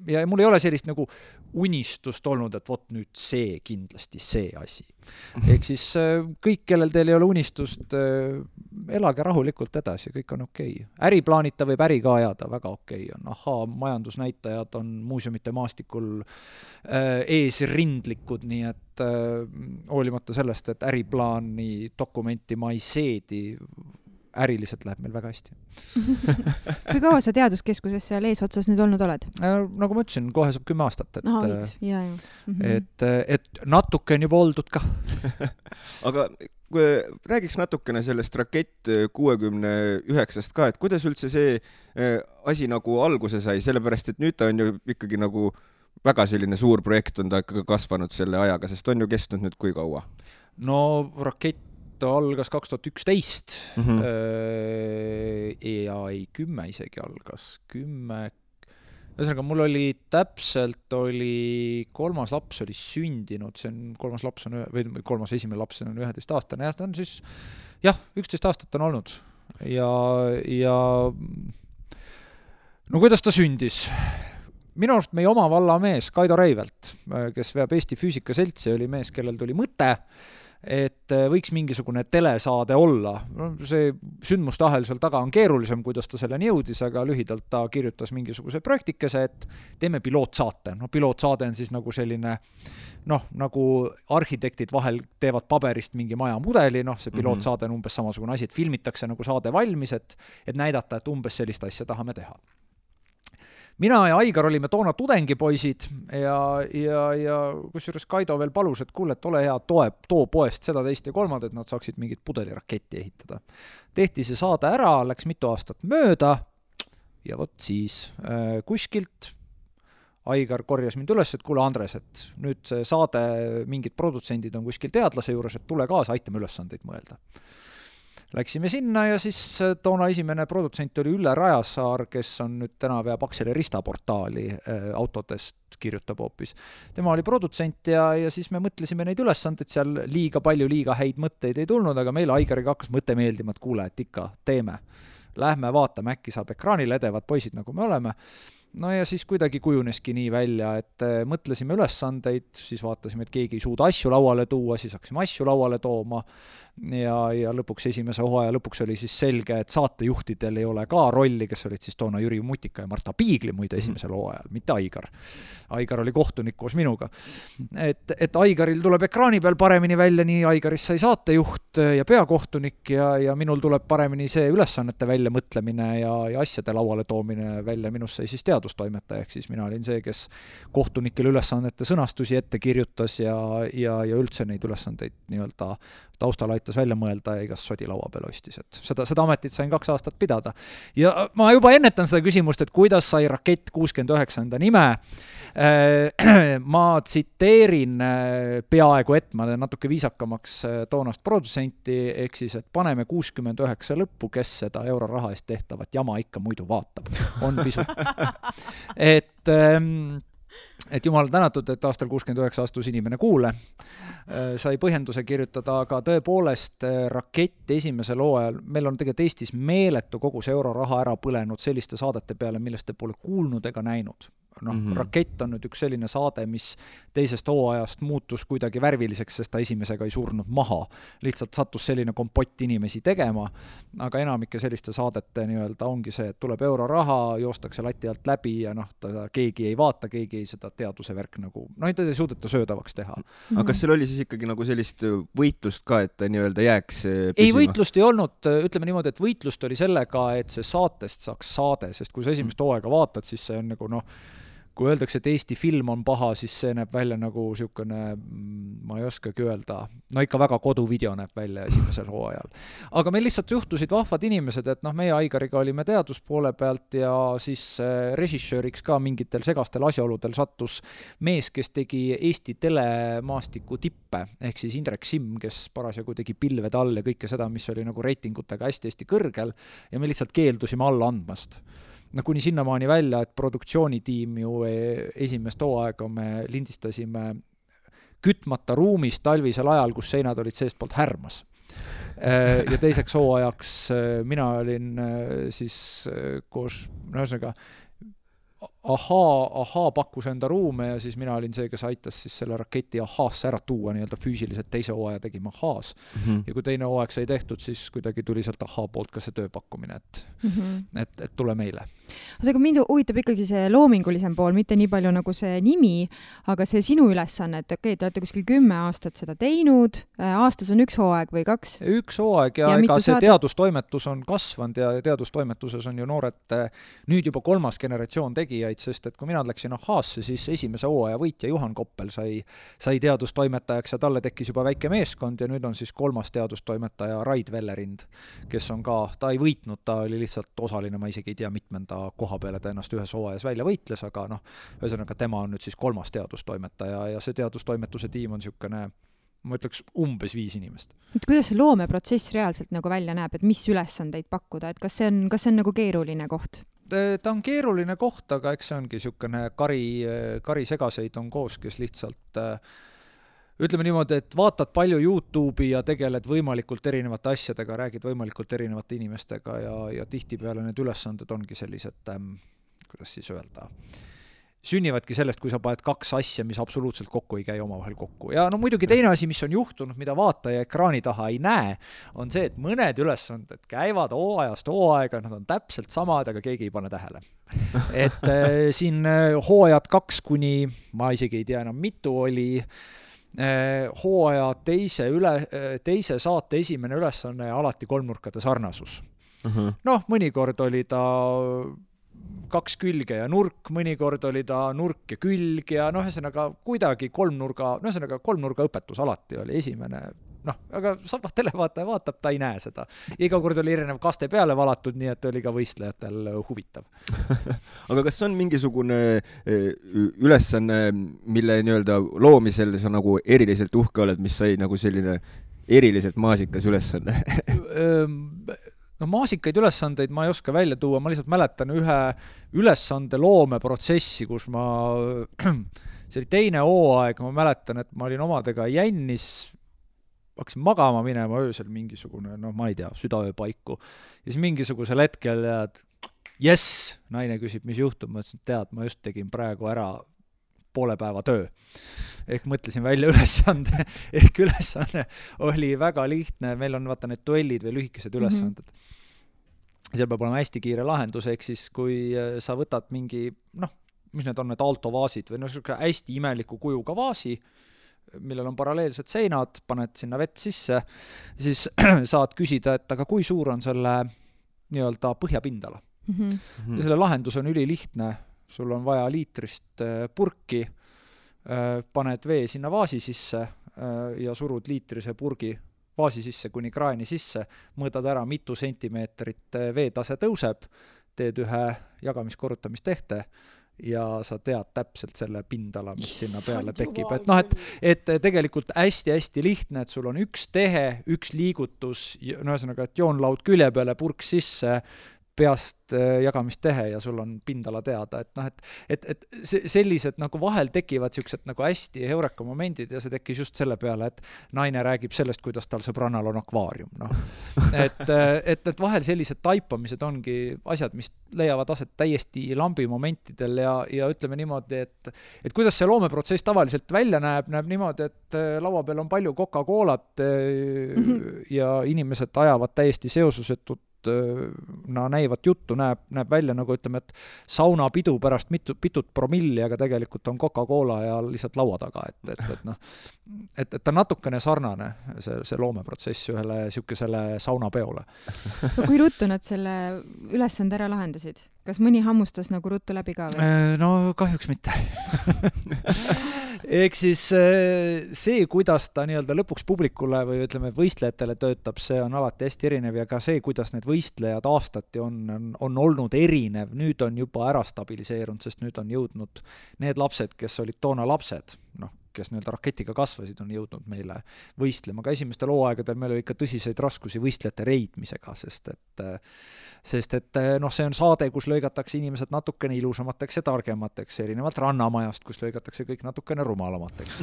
ja mul ei ole sellist nagu unistust olnud, et vot nüüd see kindlasti see asi. Ehk siis kõik, kellel teil ei ole unistust, elage rahulikult edasi, kõik on okei. Äriplaanita võib äri ka ajada, väga okei on. Majandusnäitajad on muuseumite maastikul eesrindlikud, nii et hoolimata sellest, et äriplaani dokumenti ma ei seedi, äriliselt läheb meil väga hästi. Kui kaua sa teaduskeskuses seal eesotsas nüüd olnud oled? Nagu ma ütlesin, kohe saab 10 aastat. Et natuke on juba oldud ka. Aga kui räägiks natukene sellest Rakett 69-st ka, et kuidas üldse see asi nagu alguse sai, sellepärast, et nüüd ta on ju ikkagi nagu väga selline suur projekt on ta ikkagi kasvanud selle ajaga, sest on ju kestnud nüüd kui kaua? No Rakett algas 2011 ja 10 isegi algas 10. Ühesõnaga, mul oli täpselt 3. laps oli sündinud, see on 3. laps on, või 3. esimene laps on 11 aastane ja ta on siis 11 aastat on olnud ja no kuidas ta sündis? Minu arust meie oma vallamees Kaido Reivelt, kes veab Eesti Füüsikaseltsi, oli mees, kellel tuli mõte et võiks mingisugune telesaade olla. No, see sündmustahel seal taga on keerulisem, kuidas ta selleni jõudis, aga lühidalt ta kirjutas mingisuguse projektikese, et teeme pilootsaate. No pilootsaade on siis nagu selline, nagu arhitektid vahel teevad paberist mingi maja mudeli, see pilootsaade on umbes samasugune asi, et filmitakse nagu saade valmis, et näidata, et umbes sellist asja tahame teha. Mina ja Aigar olime toona tudengipoisid ja kusjuures Kaido veel palus, et kuule, et ole hea, too poest seda, teist ja kolmand, et nad saaksid mingit pudeliraketti ehitada. Tehti see saade ära, läks mitu aastat mööda ja vot siis kuskilt Aigar korjas mind üles, et kuule Andres, et nüüd see saade, mingid produtsendid on kuskil teadlase juures, et tule kaasa, aitame ülesandeid mõelda. Läksime sinna ja siis toona esimene produtsent oli Ülle Rajasaar, kes on nüüd täna veab Akseli Rista-portaali autodest kirjutab hoopis. Tema oli produtsent ja siis me mõtlesime neid ülesandeid, seal liiga häid mõtteid ei tulnud, aga meil Aigariga hakkas mõte meeldima, et kuule, et ikka teeme. Lähme vaatame, äkki saab ekraanile edevad poisid, nagu me oleme. No ja siis kuidagi kujuneski nii välja, et mõtlesime ülesandeid, siis vaatasime, et keegi ei suuda asju lauale tuua, siis hakkasime asju lauale tooma ja lõpuks esimese hooaja lõpuks oli siis selge, et saatejuhtidel ei ole ka rolli, kes olid siis toona Jüri Mutika ja Marta Piigli muide esimesel hooajal, mitte Aigar. Aigar oli kohtunik koos minuga. Et Aigaril tuleb ekraani peal paremini välja, nii Aigarist sai saatejuht ja peakohtunik ja minul tuleb paremini see ülesannete välja mõtlemine ja asjade lauale toomine välja, minust sai siis teadustoimetaja, ehk siis mina olin see, kes kohtunikele ülesannete sõnastusi ette kirjutas ja üldse neid ülesandeid nii-öelda taustal aitas välja mõelda ja igast sodi laua peal ostis, et seda ametit sain 2 aastat pidada. Ja ma juba ennetan seda küsimust, et kuidas sai Rakett 69 enda nime. Ma tsiteerin peaaegu ma natuke viisakamaks toonast produtsenti, ehk siis, et paneme 69 lõppu, kes seda euroraha eest tehtavat jama ikka muidu vaatab. On pisut. Et jumal tänatud, et aastal 69 astus inimene kuule, sai põhjenduse kirjutada, aga tõepoolest Rakett esimesel hooajal, meil on tegelikult Eestis meeletu kogu see euroraha ära põlenud selliste saadete peale, millest te pole kuulnud ega näinud. Rakett on nüüd üks selline saade, mis teisest hooajast muutus kuidagi värviliseks, sest ta esimesega ei surnud maha. Lihtsalt sattus selline kompott inimesi tegema, aga enamike selliste saadete nii-öelda ongi see, et tuleb euroraha, joostakse lati alt läbi ja keegi ei vaata, keegi ei seda teaduse värk nagu, ei suudeta söödavaks teha. Aga kas seal oli siis ikkagi nagu sellist võitlust ka, et ta nii-öelda jääks püsima? Ei, võitlust ei olnud, ütleme niimoodi, et võitlust oli sellega, et see saatest saaks saade, sest kui sa esimest hooaega vaatad, siis see on nagu kui öeldakse, et Eesti film on paha, siis see näeb välja nagu siukene, ma ei oskagi öelda, ikka väga koduvideo näeb välja esimesel hooajal. Aga meil lihtsalt juhtusid vahvad inimesed, et meie Aigariga olime teaduspoole pealt ja siis režissööriks ka mingitel segastel asjaoludel sattus mees, kes tegi Eesti telemaastiku tippe, ehk siis Indrek Simm, kes parasjagu tegi pilvede all ja kõike seda, mis oli nagu reitingutega hästi kõrgel ja me lihtsalt keeldusime alla andmast. Kuni sinnamaani välja, et produktsioonitiim ju esimest hooaega me lindistasime kütmata ruumis talvisel ajal, kus seinad olid seestpoolt härmas. Ja teiseks hooajaks mina olin siis koos, Ahaa pakkus enda ruume ja siis mina olin see, kes aitas siis selle Raketi Ahaasse ära tuua nii-öelda füüsiliselt, teise hooaja tegime Ahaas. Ja kui teine hooaeg sai tehtud, siis kuidagi tuli sealt Ahaa poolt ka see tööpakkumine, et tule meile. Aga mind huvitab ikkagi see loomingulisem pool, mitte nii palju nagu see nimi, aga see sinu ülesanne, et te olete kuskil 10 aastat seda teinud, aastas on 1 hooaeg või 2? 1 hooaeg ja ega see teadustoimetus on kasvanud ja teadustoimetuses on ju noored nüüd juba 3. generatsioon tegijaid, sest et kui mina läksin Ahaasse, siis esimese hooaja võitja Juhan Koppel sai teadustoimetajaks ja talle tekkis juba väike meeskond ja nüüd on siis 3. teadustoimetaja Raid Vellerind, kes on ka, ta ei võitnud, ta oli lihtsalt osaline, ma isegi ei tea mitmenda koha peale ta ennast ühes hooajas välja võitles, aga ühesõnaga tema on nüüd siis 3. teadustoimetaja ja see teadustoimetuse tiim on niisugune, ma ütleks, umbes 5 inimest. Kuidas see loomeprotsess reaalselt nagu välja näeb, et mis ülesandeid pakkuda, et kas see on nagu keeruline koht? Ta on keeruline koht, aga eks see ongi niisugune kari segaseid on koos, kes lihtsalt ütleme niimoodi, et vaatad palju YouTube'i ja tegeled võimalikult erinevate asjadega, räägid võimalikult erinevate inimestega ja tihtipeale need ülesanded ongi sellised, kuidas siis öelda, sünnivadki sellest, kui sa paned kaks asja, mis absoluutselt kokku ei käi omavahel kokku. Ja no muidugi teine asi, mis on juhtunud, mida vaataja ekraani taha ei näe, on see, et mõned ülesanded käivad hooajast hooaega, nad on täpselt samad, aga keegi ei pane tähele. Et siin hooajad 2 kuni, ma isegi ei tea enam mitu oli, hooaja teise saate esimene ülesanne alati kolmnurkade sarnasus. Noh, mõnikord oli ta 2 külge ja nurk, mõnikord oli ta nurk ja külg ja noh, ühesõnaga kuidagi kolmnurga õpetus alati oli esimene, noh, aga televaataja vaatab, ta ei näe seda. Iga kord oli erinev kaste peale valatud, nii et oli ka võistlejatel huvitav. Aga kas on mingisugune ülesanne, mille nii-öelda loomisel sa nagu eriliselt uhke oled, mis sai nagu selline eriliselt maasikas ülesanne? No maasikaid ülesandeid ma ei oska välja tuua, ma lihtsalt mäletan ühe ülesande loomeprotsessi, kus see oli teine hooaeg, ma mäletan, et ma olin omadega jännis, hakkasin magama minema öösel mingisugune, no ma ei tea, südaöö paiku. Ja siis mingisugusel hetkel yes, naine küsib, mis juhtub, ma ütlesin, tead, ma just tegin praegu ära poole päeva töö. Ehk mõtlesin välja ülesande, ehk ülesanne oli väga lihtne, meil on vaata need duellid või lühikesed ülesanded. Seal peab olema hästi kiire lahendus, ehk siis kui sa võtad mingi, noh, mis need on need altovaasid või hästi imeliku kujuga vaasi, millel on paralleelsed seinad, paned sinna vett sisse, siis saad küsida, et aga kui suur on selle nii-öelda põhjapindala. Ja selle lahendus on ülilihtne, sul on vaja liitrist purki, paned vee sinna vaasi sisse ja surud liitrise purgi vaasi sisse kuni kraani sisse, mõõdad ära, mitu sentimeetrit veetase tõuseb, teed ühe jagamiskorrutamistehte ja sa tead täpselt selle pindala, mis sinna peale tekib. Et, noh, et tegelikult hästi-hästi lihtne, et sul on üks tehe, üks liigutus, no ühesõnaga, et joonlaud külje peale, purk sisse, peast jagamistehe ja sul on pindala teada, et noh, et sellised nagu vahel tekivad siuksed nagu hästi heureka momendid ja see tekkis just selle peale, et naine räägib sellest, kuidas tal sõbrannal on akvaarium, noh. Et vahel sellised taipamised ongi asjad, mis leiavad aset täiesti lambi momentidel ja ütleme niimoodi, et kuidas see loomeprotsess tavaliselt välja näeb niimoodi, et laua peal on palju Coca-Colat ja inimesed ajavad täiesti seosusetut näivat juttu, näeb välja nagu ütleme, et saunapidu pärast pitut promilli, aga tegelikult on Coca-Cola ja lihtsalt laua taga, et ta natukene sarnane see loomeprotsess ühele siukesele saunapeole. No, kui ruttu nad selle ülesande ära lahendasid? Kas mõni hammustas nagu ruttu läbi ka või? No kahjuks mitte. Ehk siis see, kuidas ta nii-öelda lõpuks publikule või ütleme võistlejatele töötab, see on alati hästi erinev ja ka see, kuidas need võistlejad aastati on olnud erinev, nüüd on juba ära stabiliseerunud, sest nüüd on jõudnud need lapsed, kes olid toona lapsed, noh, kes nii-öelda raketiga kasvasid, on jõudnud meile võistlema. Ka esimestel hooaegadel meil oli ikka tõsiseid raskusi võistlejate reidmisega, sest et noh, see on saade, kus lõigatakse inimesed natukene ilusamateks ja targemateks, erinevalt Rannamajast, kus lõigatakse kõik natukene rumalamateks.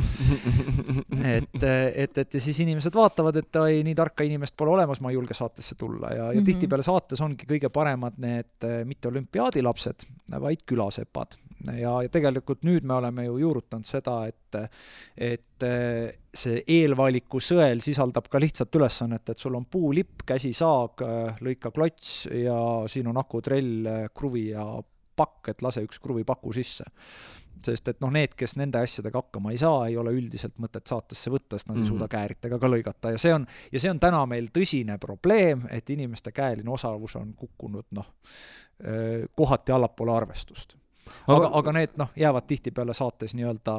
Et ja siis inimesed vaatavad, et nii tarka inimest pole olemas, ma ei julge saatesse tulla ja tihtipeale saates ongi kõige paremad need mitte olümpiaadilapsed, vaid külasepad. Ja tegelikult nüüd me oleme ju juurutanud seda, et see eelvaliku sõel sisaldab ka lihtsalt ülesannet, et sul on puulipp, käsisaag, lõika klots ja siin on akutrell, kruvi ja pakk, et lase üks kruvipaku sisse. Sest et noh, need, kes nende asjadega hakkama ei saa, ei ole üldiselt mõtet saatesse võtta, sest nad ei suuda kääritega ka lõigata. Ja see on täna meil tõsine probleem, et inimeste käeline osavus on kukkunud kohati allapoole arvestust. Aga need jäävad tihtipeale saates nii-öelda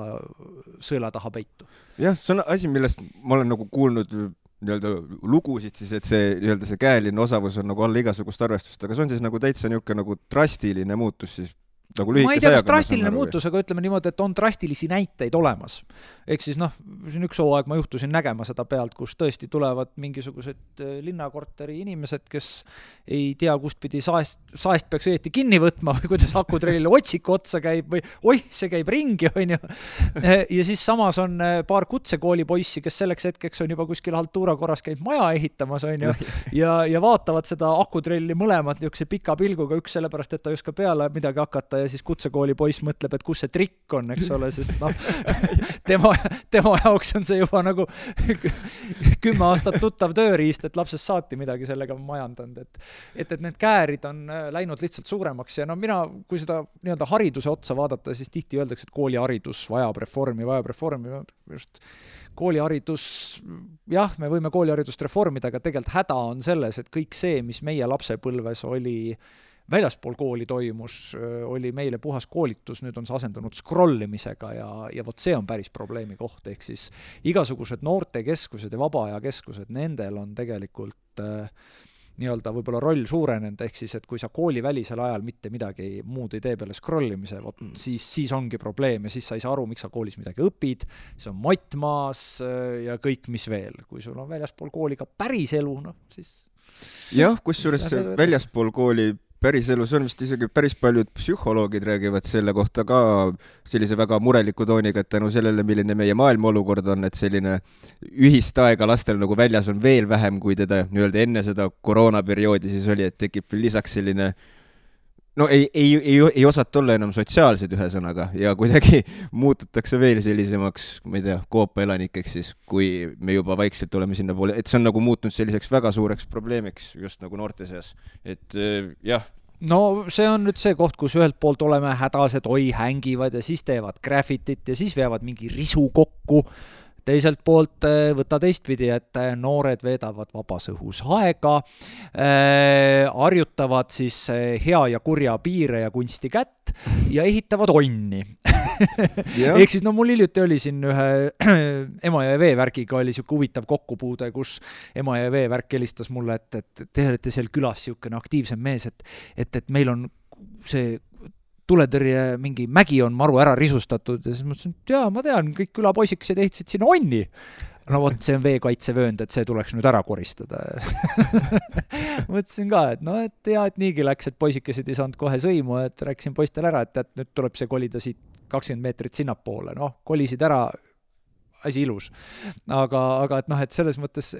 sõela taha peitu. Jah, see on asi, millest ma olen nagu kuulnud nii-öelda lugusid siis, et see käeline osavus on nagu alla igasugust arvestust, aga see on siis nagu täitsa niisugune nagu drastiline muutus siis nagu ma ei tea, kas drastiline muutus, aga ütleme niimoodi, et on drastilisi näiteid olemas. Ehk siis siin üks hooaeg ma juhtusin nägema seda pealt, kus tõesti tulevad mingisugused linnakorteri inimesed, kes ei tea, kust pidi saest peaks õieti kinni võtma või kuidas akutrellile otsiku otsa käib või see käib ringi, on ju. Ja siis samas on paar kutsekooli poissi, kes selleks hetkeks on juba kuskil haltuura korras käib maja ehitamas, on ju, ja vaatavad seda akutrelli mõlemad niisuguse pika pilguga, üks sellepärast, et ta ei oska peale midagi hakata ja siis kutsekooli poiss mõtleb, et kus see trikk on, eks ole, sest noh, tema jaoks on see juba nagu 10 aastat tuttav tööriist, et lapsest saati midagi sellega majandanud, et need käärid on läinud lihtsalt suuremaks ja no mina, kui seda nii-öelda hariduse otsa vaadata, siis tihti öeldakse, et kooliharidus vajab reformi, just kooliharidus, jah, me võime kooliharidust reformida, aga tegelikult häda on selles, et kõik see, mis meie lapsepõlves oli väljaspool kooli toimus, oli meile puhas koolitus, nüüd on see asendunud scrollimisega ja vot see on päris probleemi koht, ehk siis igasugused noortekeskused ja vabaajakeskused, nendel on tegelikult nii-öelda võib-olla roll suurenenud, ehk siis, et kui sa koolivälisel ajal mitte midagi muud ei tee peale scrollimise, siis ongi probleem ja siis sa ei saa aru, miks sa koolis midagi õpid, see on mottmaas ja kõik, mis veel. Kui sul on väljaspool kooli ka päris elu, noh, siis... Jah, kusjuures väljaspool kooli päris elus on vist isegi päris paljud psühholoogid räägivad selle kohta ka sellise väga mureliku tooniga, et tänu sellele, milline meie maailma olukord on, et selline ühist aega lastel nagu väljas on veel vähem, kui teda nii-öelda enne seda koroonaperioodi siis oli, et tekib lisaks selline no ei osata olla enam sotsiaalsed ühesõnaga ja kuidagi muututakse veel sellisemaks, ma ei tea, koopa elanikeks siis, kui me juba vaikselt oleme sinna poole, et see on nagu muutunud selliseks väga suureks probleemiks just nagu noorte seas, et jah. No see on nüüd see koht, kus ühelt poolt oleme hädased, hängivad ja siis teevad graffitit ja siis veavad mingi risu kokku. Teiselt poolt võtta teistpidi, et noored veedavad vabas õhus aega, harjutavad siis hea ja kurja piire ja kunsti kätt ja ehitavad onni. Ehk siis, no mul hiljuti oli siin ühe Emajõe veevärgiga oli siuke huvitav kokkupuude, kus Emajõe veevärk helistas mulle, et te olete seal külas siukene aktiivsem mees, et meil on see tuletõrje mingi mägi on maru ära risustatud ja siis mõtlesin, et jaa, ma tean, kõik külapoisikesed ehitasid sinna onni. No vot, see on veekaitsevöönd, et see tuleks nüüd ära koristada. Mõtlesin ka, et no, et hea, et niigi läks, et poisikesed ei saanud kohe sõimu, et rääkisin poistel ära, et nüüd tuleb see kolida siit 20 meetrit sinnapoole. Noh, kolisid ära, asi ilus. Aga et noh, et selles mõttes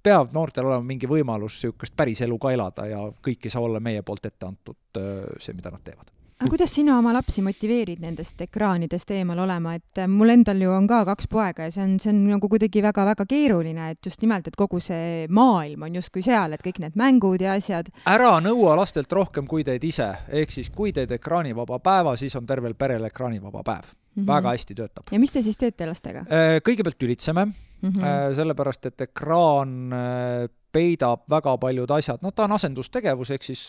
peab noortel olema mingi võimalus siukest päris elu ka elada ja kõik ei saa olla meie poolt ette antud see, mida nad teevad. Aga kuidas sina oma lapsi motiveerid nendest ekraanidest eemal olema, et mul endal ju on ka 2 poega ja see on nagu kuidagi väga-väga keeruline, et just nimelt, et kogu see maailm on justkui seal, et kõik need mängud ja asjad. Ära nõua lastelt rohkem, kui teed ise, ehk siis kui teed ekraanivaba päeva, siis on tervel perel ekraanivaba päev. Väga hästi töötab. Ja mis te siis teete lastega? Kõigepealt ülitseme, sellepärast, et ekraan peidab väga paljud asjad, no ta on asendustegevus, ehk siis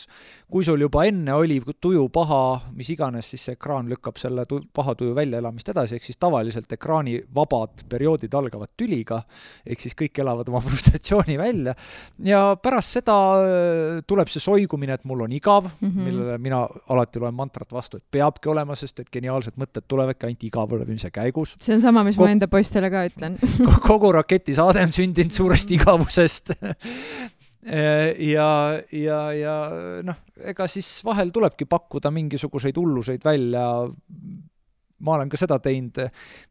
kui sul juba enne oli tuju paha, mis iganes, siis see ekraan lükkab selle paha tuju väljaelamist edasi, ehk siis tavaliselt ekraani vabad perioodid algavad tüliga, ehk siis kõik elavad oma frustratsiooni välja ja pärast seda tuleb see soigumine, et mul on igav, millele mina alati loen mantrat vastu, et peabki olema, sest et geniaalsed mõtted tulevadki ainult igavulemise käigus. See on sama, mis ma enda poistele ka ütlen. Kogu raketisaade on sündinud suurest igavusest. ja noh, ega siis vahel tulebki pakkuda mingisuguseid hulluseid välja. Ma olen ka seda teinud.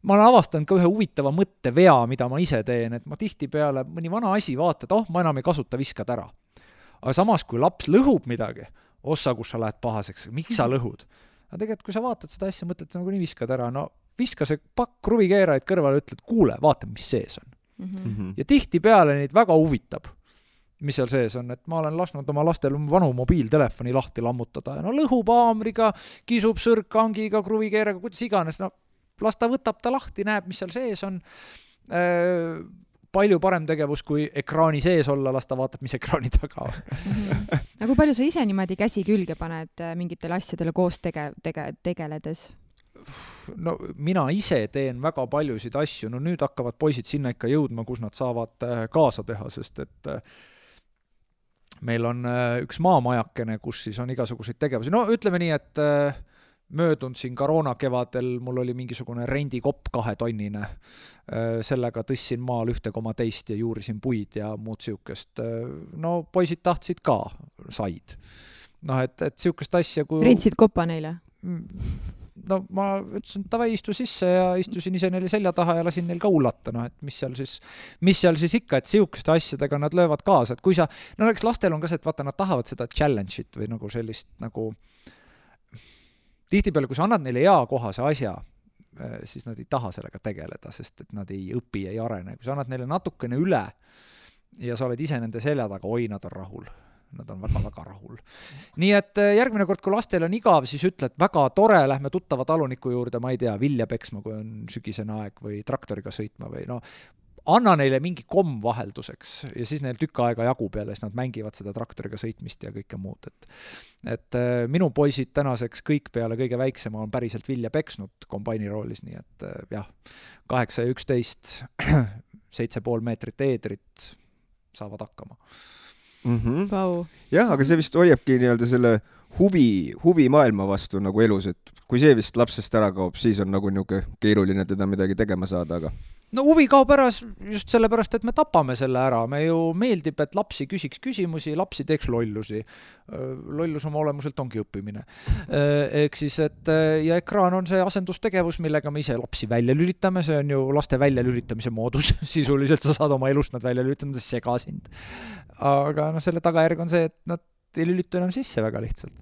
Ma olen avastanud ka ühe huvitava mõttevea, mida ma ise teen, et ma tihtipeale mõni vana asi vaatad, ma enam ei kasuta, viskad ära. Aga samas, kui laps lõhub midagi, ossa, kus sa lähed pahaseks, miks sa lõhud? Aga tegelikult, kui sa vaatad seda asja, mõtled, nagu nii viskad ära, no viska see pakk kruvikeerajaid kõrvale, ütled, kuule, vaata, mis sees on. Ja tihtipeale neid väga huvitab, mis seal sees on, et ma olen lasknud oma lastel vanu mobiiltelefoni lahti lammutada ja no lõhub haamriga, kisub sõrkkangiga, kruvikeeraga, kuidas iganes, no las ta võtab ta lahti, näeb, mis seal sees on. Palju parem tegevus, kui ekraani sees olla, las ta vaatab, mis ekraani taga on. Aga kui palju sa ise niimoodi käsi külge paned mingitele asjadele koos tegeledes? No mina ise teen väga paljusid asju, no nüüd hakkavad poisid sinna ikka jõudma, kus nad saavad kaasa teha, sest et meil on üks maamajakene, kus siis on igasuguseid tegevusi. No ütleme nii, et möödunud siin koroona kevadel mul oli mingisugune rendikopp 2-tonnine. Sellega tõssin maal 1,2 ja juurisin puid ja muud siukest. No poisid tahtsid ka, said. No et siukest asja kui... Rentsid kopa neile? No ma ütlesin, et tavai istu sisse ja istusin ise neile selja taha ja lasin neil ka ullata, no et mis seal siis ikka, et siukeste asjadega nad löövad kaasa, et kui sa, no eks lastel on ka see, et vaata, nad tahavad seda challenge'it või nagu sellist nagu tihtipeale, kui sa annad neile eakohase asja, siis nad ei taha sellega tegeleda, sest et nad ei õpi, ei arene. Kui sa annad neile natukene üle ja sa oled ise nende selja taga, nad on rahul. Nad on väga-väga rahul. Nii et järgmine kord, kui lastel on igav, siis ütled, väga tore, lähme tuttava taluniku juurde, ma ei tea, vilja peksma, kui on sügisene aeg või traktoriga sõitma või anna neile mingi komm vahelduseks ja siis neil tükk aega jagub jälle, siis nad mängivad seda traktoriga sõitmist ja kõike muud. Et minu poisid tänaseks kõik peale kõige väiksema on päriselt vilja peksnud kombaini roolis, nii et jah, 8 ja 11, 7,5 meetrit eedrit saavad hakkama. Wow. Jah, aga see vist hoiabki nii-öelda selle huvi maailma vastu nagu elus, et kui see vist lapsest ära kaob, siis on nagu niuke keeruline teda midagi tegema saada, aga no huvi kaob ära just sellepärast, et me tapame selle ära. Me ju meeldib, et lapsi küsiks küsimusi, lapsi teeks lollusi. Lollus oma olemuselt ongi õppimine. Ehk siis, et ja ekraan on see asendustegevus, millega me ise lapsi välja lülitame. See on ju laste välja lülitamise moodus. Sisuliselt sa saad oma elust nad välja lülitama, see sega sind. Aga selle tagajärg on see, et nad ei lülitu enam sisse väga lihtsalt.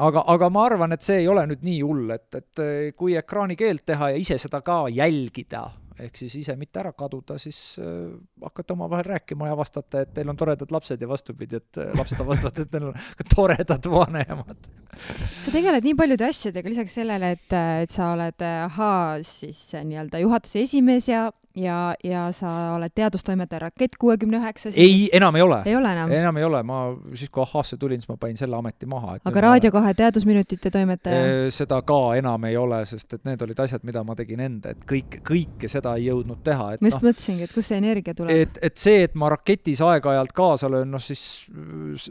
Aga ma arvan, et see ei ole nüüd nii hull, et kui ekraani keelt teha ja ise seda ka jälgida, ehk siis ise mitte ära kaduda, siis hakkate omavahel rääkima ja vastate, et teil on toredad lapsed ja vastupidi, et lapsed vastavad, et teil on toredad vanemad. Sa tegeled nii paljude asjadega lisaks sellele, et sa oled siis nii-öelda juhatuse esimees ja sa oled teadustoimetaja Rakett 69. Ei, enam ei ole. Ei ole enam? Enam ei ole. Ma siis, kui ahhaasse tulin, siis ma panin selle ameti maha. Aga Raadio 2 teadusminutite toimetaja? Seda ka enam ei ole, sest et need olid asjad, mida ma tegin enda, et kõike seda ei jõudnud teha. Ma just mõtlesingi, et kus see energia tuleb? Et see, et ma Raketis aeg-ajalt kaasa löön, siis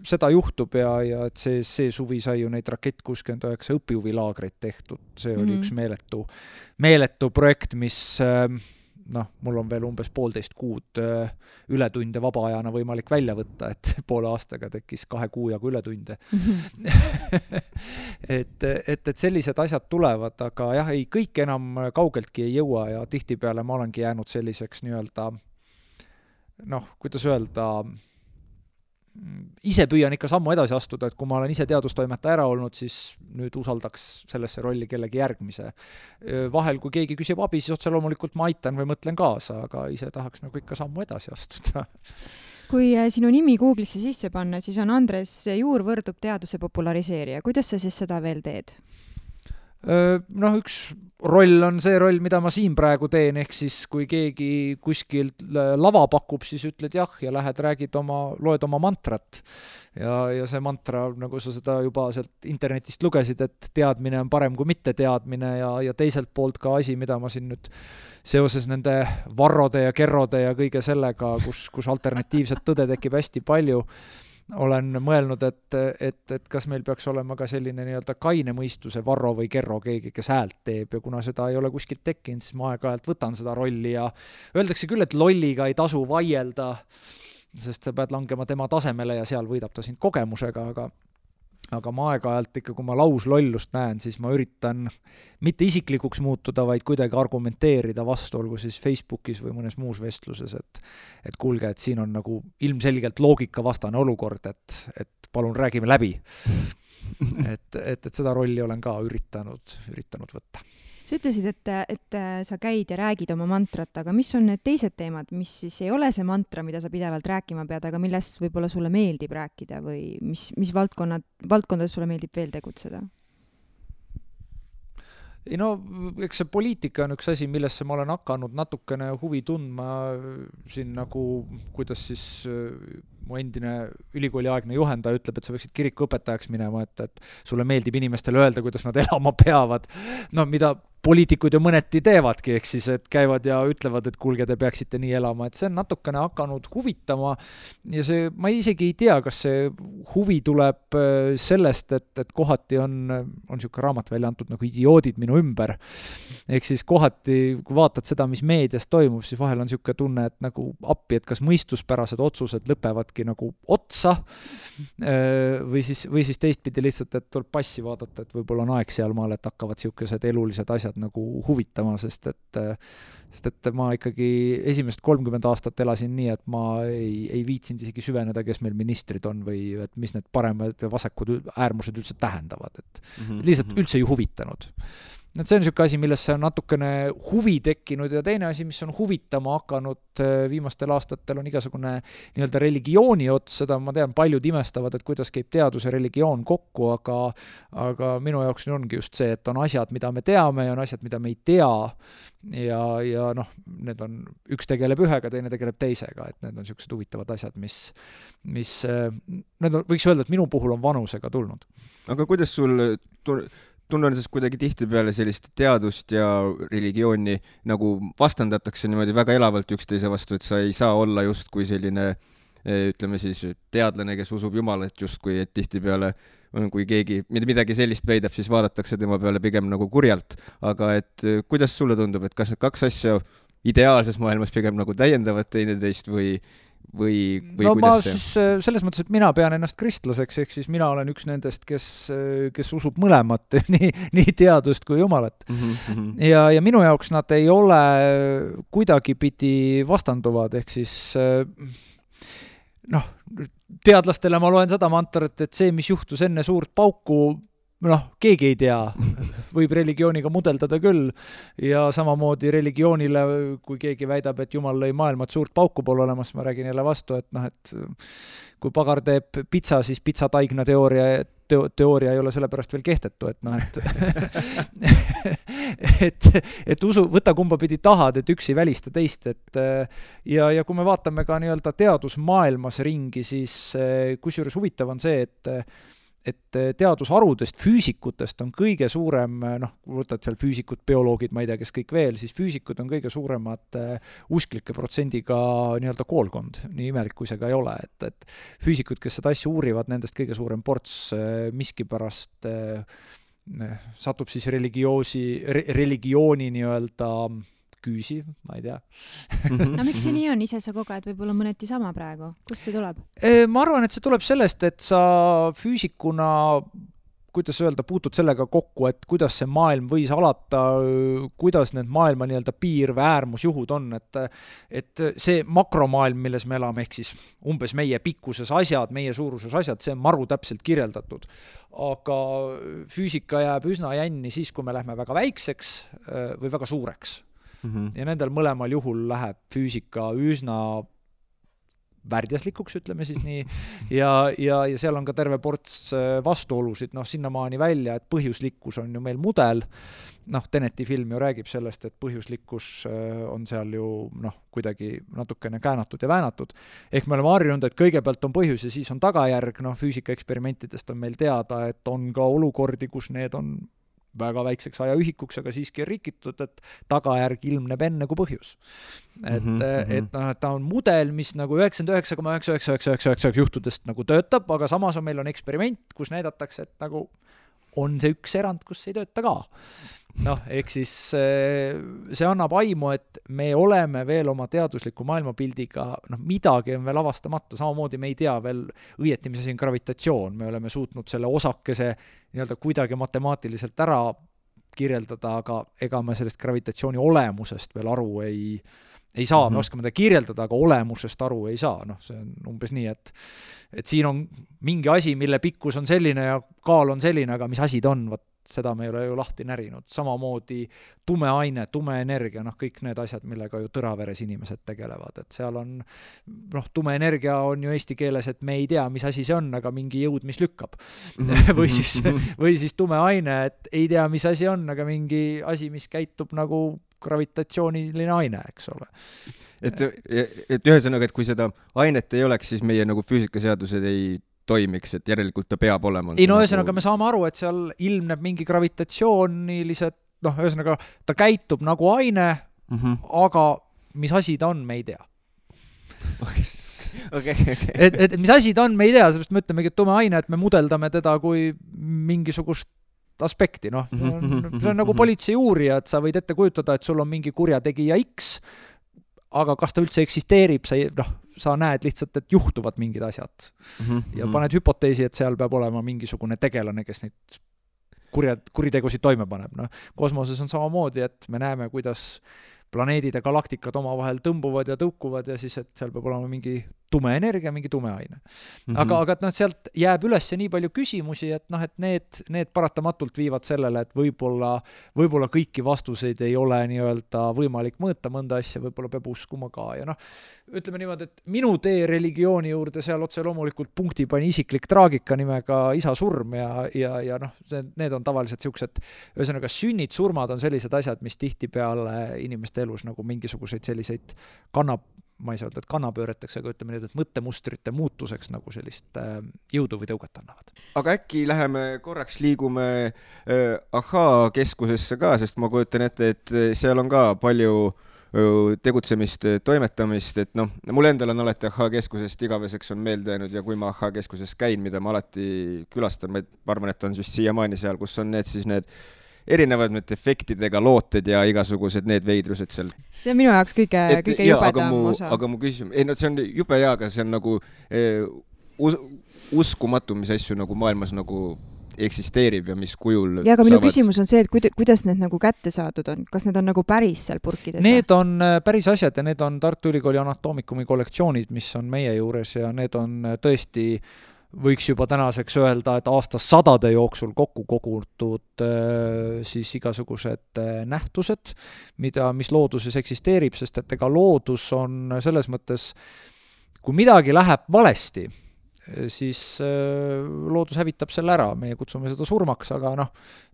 seda juhtub ja et see suvi sai ju neid Rakett 69 õpihuvilaagreid tehtud. See oli üks meeletu projekt, mis mul on veel umbes 1,5 kuud ületunde vabaajana võimalik välja võtta, et poole aastaga tekkis 2 kuu jagu ületunde. et sellised asjad tulevad, aga jah, ei, kõik enam kaugeltki ei jõua ja tihtipeale ma olengi jäänud selliseks nii-öelda, kuidas öelda, ise püüan ikka sammu edasi astuda, et kui ma olen ise teadustoimetaja ära olnud, siis nüüd usaldaks sellesse rolli kellegi järgmise. Vahel, kui keegi küsib abi, siis otse loomulikult ma aitan või mõtlen kaasa, aga ise tahaks nagu ikka sammu edasi astuda. Kui sinu nimi Google'isse sisse panna, siis on Andres Juur võrdub teaduse populariseerija. Kuidas sa siis seda veel teed? Üks roll on see roll, mida ma siin praegu teen, ehk siis kui keegi kuskilt lava pakub, siis ütled jah ja lähed, loed oma mantrat ja see mantra, nagu sa seda juba sealt internetist lugesid, et teadmine on parem kui mitte teadmine ja teiselt poolt ka asi, mida ma siin nüüd seoses nende varrode ja kerrode ja kõige sellega, kus alternatiivset tõde tekib hästi palju, olen mõelnud, et kas meil peaks olema ka selline nii-öelda kaine mõistuse varro või kerro keegi, kes häält teeb ja kuna seda ei ole kuskilt tekkinud, siis ma aeg-ajalt võtan seda rolli ja öeldakse küll, et lolliga ei tasu vaielda, sest sa pead langema tema tasemele ja seal võidab ta sind kogemusega, aga ma aeg-ajalt ikka, kui ma lauslollust näen, siis ma üritan mitte isiklikuks muutuda, vaid kuidagi argumenteerida vastu, olgu siis Facebookis või mõnes muus vestluses, et kuulge, et siin on nagu ilmselgelt loogikavastane olukord, et palun räägime läbi. et seda rolli olen ka üritanud võtta. Sa ütlesid, et sa käid ja räägid oma mantrat, aga mis on need teised teemad, mis siis ei ole see mantra, mida sa pidevalt rääkima pead, aga millest võib-olla sulle meeldib rääkida või mis valdkondades sulle meeldib veel tegutseda? Eks see poliitika on üks asi, millesse ma olen hakanud natukene huvi tundma siin nagu, kuidas siis mu endine ülikooliaegne juhendaja ütleb, et sa võiksid kirikuõpetajaks minema, et sulle meeldib inimestele öelda, kuidas nad elama peavad. Mida poliitikud ju mõneti teevadki, ehk siis, et käivad ja ütlevad, et kuulge, te peaksite nii elama, et see on natukene hakanud huvitama ja see, ma isegi ei tea, kas see huvi tuleb sellest, et kohati on niisugune raamat välja antud nagu idioodid minu ümber. Ehk siis kohati, kui vaatad seda, mis meedias toimub, siis vahel on niisugune tunne, et nagu appi, et kas mõistuspärased otsused lõpevadki millestki nagu otsa või siis teistpidi lihtsalt, et tuleb passi vaadata, et võib-olla on aeg sealmaal, et hakkavad siukesed elulised asjad nagu huvitama, sest et ma ikkagi esimesed 30 aastat elasin nii, et ma ei viitsinud isegi süveneda, kes meil ministrid on või et mis need paremad ja vasakud äärmused üldse tähendavad, et lihtsalt üldse ei huvitanud. Et see on niisugune asi, millesse on natukene huvi tekkinud ja teine asi, mis on huvitama hakanud viimastel aastatel, on igasugune nii-öelda religiooni ots, seda ma tean, paljud imestavad, et kuidas käib teadus ja religioon kokku, aga minu jaoks ongi just see, et on asjad, mida me teame ja on asjad, mida me ei tea ja noh, need on, üks tegeleb ühega, teine tegeleb teisega, et need on niisugused huvitavad asjad, mis need on, võiks öelda, et minu puhul on vanusega tulnud. Aga kuidas sul tunnen siis kuidagi tihtipeale sellist teadust ja religiooni nagu vastandatakse niimoodi väga elavalt üksteise vastu, et sa ei saa olla justkui selline, ütleme siis, teadlane, kes usub Jumalat justkui, et tihtipeale kui keegi midagi sellist väidab, siis vaadatakse tema peale pigem nagu kurjalt. Aga et kuidas sulle tundub, et kas need kaks asja ideaalses maailmas pigem nagu täiendavad teineteist või no ma siis selles mõttes, et mina pean ennast kristlaseks, ehk siis mina olen üks nendest, kes usub mõlemat, nii teadust kui Jumalat. Ja minu jaoks nad ei ole kuidagipidi vastanduvad, ehk siis noh, teadlastele ma loen seda mantarat, et see, mis juhtus enne suurt pauku, keegi ei tea, võib religiooniga mudeldada küll ja samamoodi religioonile, kui keegi väidab, et Jumal lõi maailma, et suurt pauku pole olemas, ma räägin jälle vastu, et kui pagar teeb pitsa, siis pitsataigna teooria ei ole sellepärast veel kehtetu, et usu, võta kumba pidi tahad, et üks ei välista teist, ja kui me vaatame ka nii-öelda teadusmaailmas ringi, siis kusjuures huvitav on see, et teadusharudest, füüsikutest on kõige suurem, võtad seal füüsikud, bioloogid, ma ei tea, kes kõik veel, siis füüsikud on kõige suuremad usklike protsendiga nii-öelda koolkond, nii imelik kui see ka ei ole, et füüsikud, kes seda asja uurivad, nendest kõige suurem ports miskipärast satub siis religiooni nii-öelda küüsi, ma ei tea. No miks see nii on? Ise sa koged võib-olla mõneti sama praegu. Kust see tuleb? Ma arvan, et see tuleb sellest, et sa füüsikuna, kuidas öelda, puutud sellega kokku, et kuidas see maailm võis alata, kuidas need maailma nii-öelda piir või äärmusjuhud on, et see makromaailm, milles me elame, ehk siis umbes meie pikkuses asjad, meie suuruses asjad, see on maru täpselt kirjeldatud. Aga füüsika jääb üsna jänni siis, kui me lähme väga väikseks või väga suureks. Ja nendel mõlemal juhul läheb füüsika üsna värdjaslikuks, ütleme siis nii, ja seal on ka terve ports vastuolusid, sinnamaani välja, et põhjuslikkus on ju meil mudel, Teneti film ju räägib sellest, et põhjuslikkus on seal ju kuidagi natukene käänatud ja väänatud, ehk me oleme harjunud, et kõigepealt on põhjus ja siis on tagajärg, füüsika eksperimentidest on meil teada, et on ka olukordi, kus need on väga väikseks ajaühikuks, aga siiski on rikitud, et tagajärg ilmneb enne kui põhjus. Et ta on mudel, mis nagu 99,99999 juhtudest nagu töötab, aga samas meil on eksperiment, kus näidatakse, et nagu on see üks erand, kus ei tööta ka. Ehk siis see annab aimu, et me oleme veel oma teadusliku maailmapildiga, midagi on veel avastamata, samamoodi me ei tea veel õieti, mis asi on gravitatsioon, me oleme suutnud selle osakese nii-öelda kuidagi matemaatiliselt ära kirjeldada, aga ega me sellest gravitatsiooni olemusest veel aru ei saa, me oskame ta kirjeldada, aga olemusest aru ei saa, see on umbes nii, et siin on mingi asi, mille pikkus on selline ja kaal on selline, aga mis asi ta on, seda me ei ole ju lahti närinud. Samamoodi tume aine, tume energia, kõik need asjad, millega ju tõraveres inimesed tegelevad, et seal on, tume energia on ju eesti keeles, et me ei tea, mis asi see on, aga mingi jõud, mis lükkab. või siis tume aine, et ei tea, mis asi on, aga mingi asi, mis käitub nagu gravitatsiooniline aine, eks ole. Et ühesõnaga, et kui seda ainet ei oleks, siis meie nagu füüsikaseadused ei toimiks, et järelikult ta peab olema. Ühesõnaga me saame aru, et seal ilmneb mingi gravitatsioonilised, ühesõnaga ta käitub nagu aine, aga mis asi ta on, me ei tea. Et mis asi ta on, me ei tea, seepärast me ütlemegi, et tume aine, et me mudeldame teda kui mingisugust aspekti, see on nagu politsei uurija, et sa võid ette kujutada, et sul on mingi kurjategija X, aga kas ta üldse eksisteerib, sa näed lihtsalt, et juhtuvad mingid asjad. Ja paned hüpoteesi, et seal peab olema mingisugune tegelane, kes neid kuritegusid toime paneb. Kosmoses on samamoodi, et me näeme, kuidas planeedid ja galaktikad omavahel tõmbuvad ja tõukuvad ja siis, et seal peab olema mingi tume energia, mingi tume aine. Aga sealt jääb üles nii palju küsimusi, et need paratamatult viivad sellele, et võib-olla kõiki vastuseid ei ole nii-öelda võimalik mõõta mõnda asja, võib-olla peab uskuma ka. Ja ütleme niimoodi, et minu tee religiooni juurde seal otse loomulikult punkti pani isiklik traagika nimega isa surm ja need on tavaliselt siuksed, ühesõnaga sünnid, surmad on sellised asjad, mis tihtipeale inimeste elus nagu mingisuguseid selliseid ma ei saa öelda, et kannapööreteks, aga ütleme nüüd, et mõttemustrite muutuseks nagu sellist jõudu või tõuget annavad. Aga äkki läheme korraks liigume Ahhaa keskusesse ka, sest ma kujutan ette, et seal on ka palju tegutsemist, toimetamist, et mul endal on alati Ahhaa keskusest igaveseks on meelde jäänud ja kui ma Ahhaa keskuses käin, mida ma alati külastan, ma arvan, et on just siiamaani seal, kus on need erinevad efektidega looted ja igasugused need veidrused seal. See on minu jaoks kõige jubedam osa. Aga mu küsimus, see on jube hea, aga see on nagu uskumatu, mis asju nagu maailmas nagu eksisteerib ja mis kujul ja aga minu küsimus on see, et kuidas need nagu kätte saadud on? Kas need on nagu päris seal purkides? Need on päris asjad ja need on Tartu Ülikooli anatoomikumi kollektsioonid, mis on meie juures ja need on tõesti võiks juba tänaseks öelda, et aastasadade jooksul kokku kogutud siis igasugused nähtused, mis looduses eksisteerib, sest et ega loodus on selles mõttes, kui midagi läheb valesti, siis loodus hävitab selle ära, meie kutsume seda surmaks, aga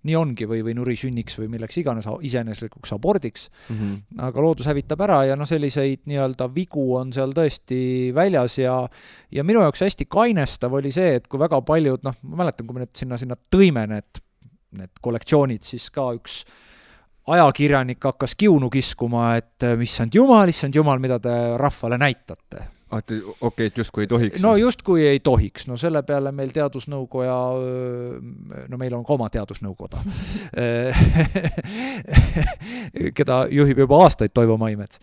nii ongi või nurisünniks või milleks iganes iseeneslikuks abordiks, aga loodus hävitab ära ja selliseid nii-öelda vigu on seal tõesti väljas ja minu jaoks hästi kainestav oli see, et kui väga paljud, ma mäletan, kui me sinna tõime need kollektsioonid, siis ka üks ajakirjanik hakkas kiunu kiskuma, et issand jumal, mida te rahvale näitate. Okei, et justkui ei tohiks. No justkui ei tohiks. Selle peale meil teadusnõukoja, meil on ka oma teadusnõukoda, keda juhib juba aastaid Toivo Maimets,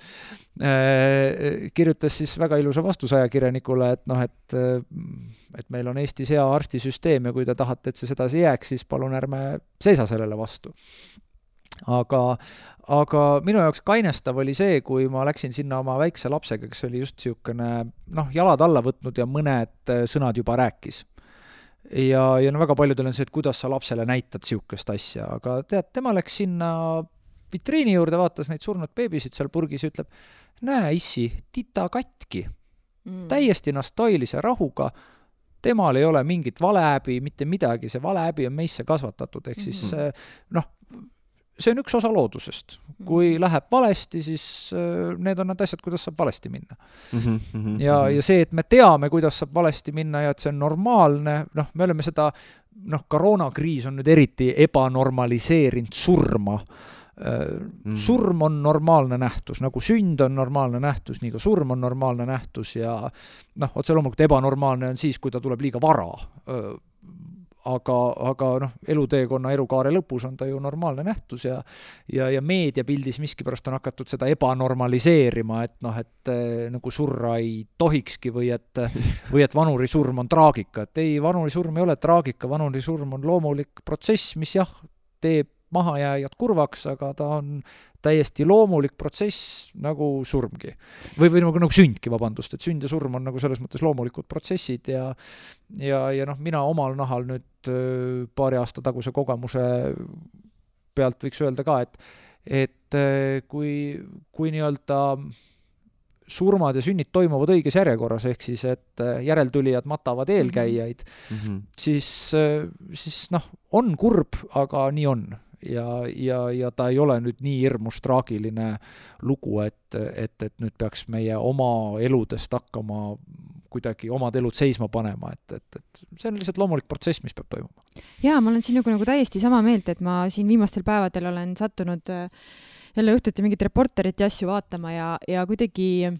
kirjutas siis väga ilusa vastuse ajakirjanikule, et meil on Eestis hea arstisüsteem ja kui te tahate, et see sedasi jääks, siis palun ärme seisa sellele vastu. Aga minu jaoks kainestav oli see, kui ma läksin sinna oma väikse lapsega, kes oli just siukene, jalad alla võtnud ja mõned sõnad juba rääkis. Ja väga paljudel on see, et kuidas sa lapsele näitad siukest asja, aga tema läks sinna vitriini juurde, vaatas neid surnud beebisid seal purgis ja ütleb, näe issi, tita katki, täiesti nastoilise rahuga, temal ei ole mingit valehäbi, mitte midagi, see valehäbi on meisse kasvatatud, ehk siis see on üks osa loodusest. Kui läheb valesti, siis need on need asjad, kuidas saab valesti minna. Ja see, et me teame, kuidas saab valesti minna ja et see on normaalne, me oleme seda, koroonakriis on nüüd eriti ebanormaliseerinud surma. Surm on normaalne nähtus, nagu sünd on normaalne nähtus, nii ka surm on normaalne nähtus ja otse loomulikult ebanormaalne on siis, kui ta tuleb liiga vara. Aga eluteekonna elukaare lõpus on ta ju normaalne nähtus ja meediapildis miskipärast on hakatud seda ebanormaliseerima, et nagu surra ei tohikski või et vanurisurm on traagika. Et ei, vanurisurm ei ole traagika, vanurisurm on loomulik protsess, mis teeb mahajääjad kurvaks, aga ta on täiesti loomulik protsess nagu surmgi. Või nagu sündki, vabandust, et sünd ja surm on nagu selles mõttes loomulikud protsessid ja mina omal nahal nüüd paari aasta taguse kogemuse pealt võiks öelda ka, et kui nii-öelda surmad ja sünnid toimuvad õiges järjekorras, ehk siis, et järeltulijad matavad eelkäijaid, siis on kurb, aga nii on. Ja ta ei ole nüüd nii hirmus traagiline lugu, et nüüd peaks meie oma eludest hakkama kuidagi omad elud seisma panema, et see on lihtsalt loomulik protsess, mis peab toimuma. Jaa, ma olen siin nagu täiesti sama meelt, et ma siin viimastel päevadel olen sattunud jälle õhtuti mingit reporterit ja asju vaatama ja kuidagi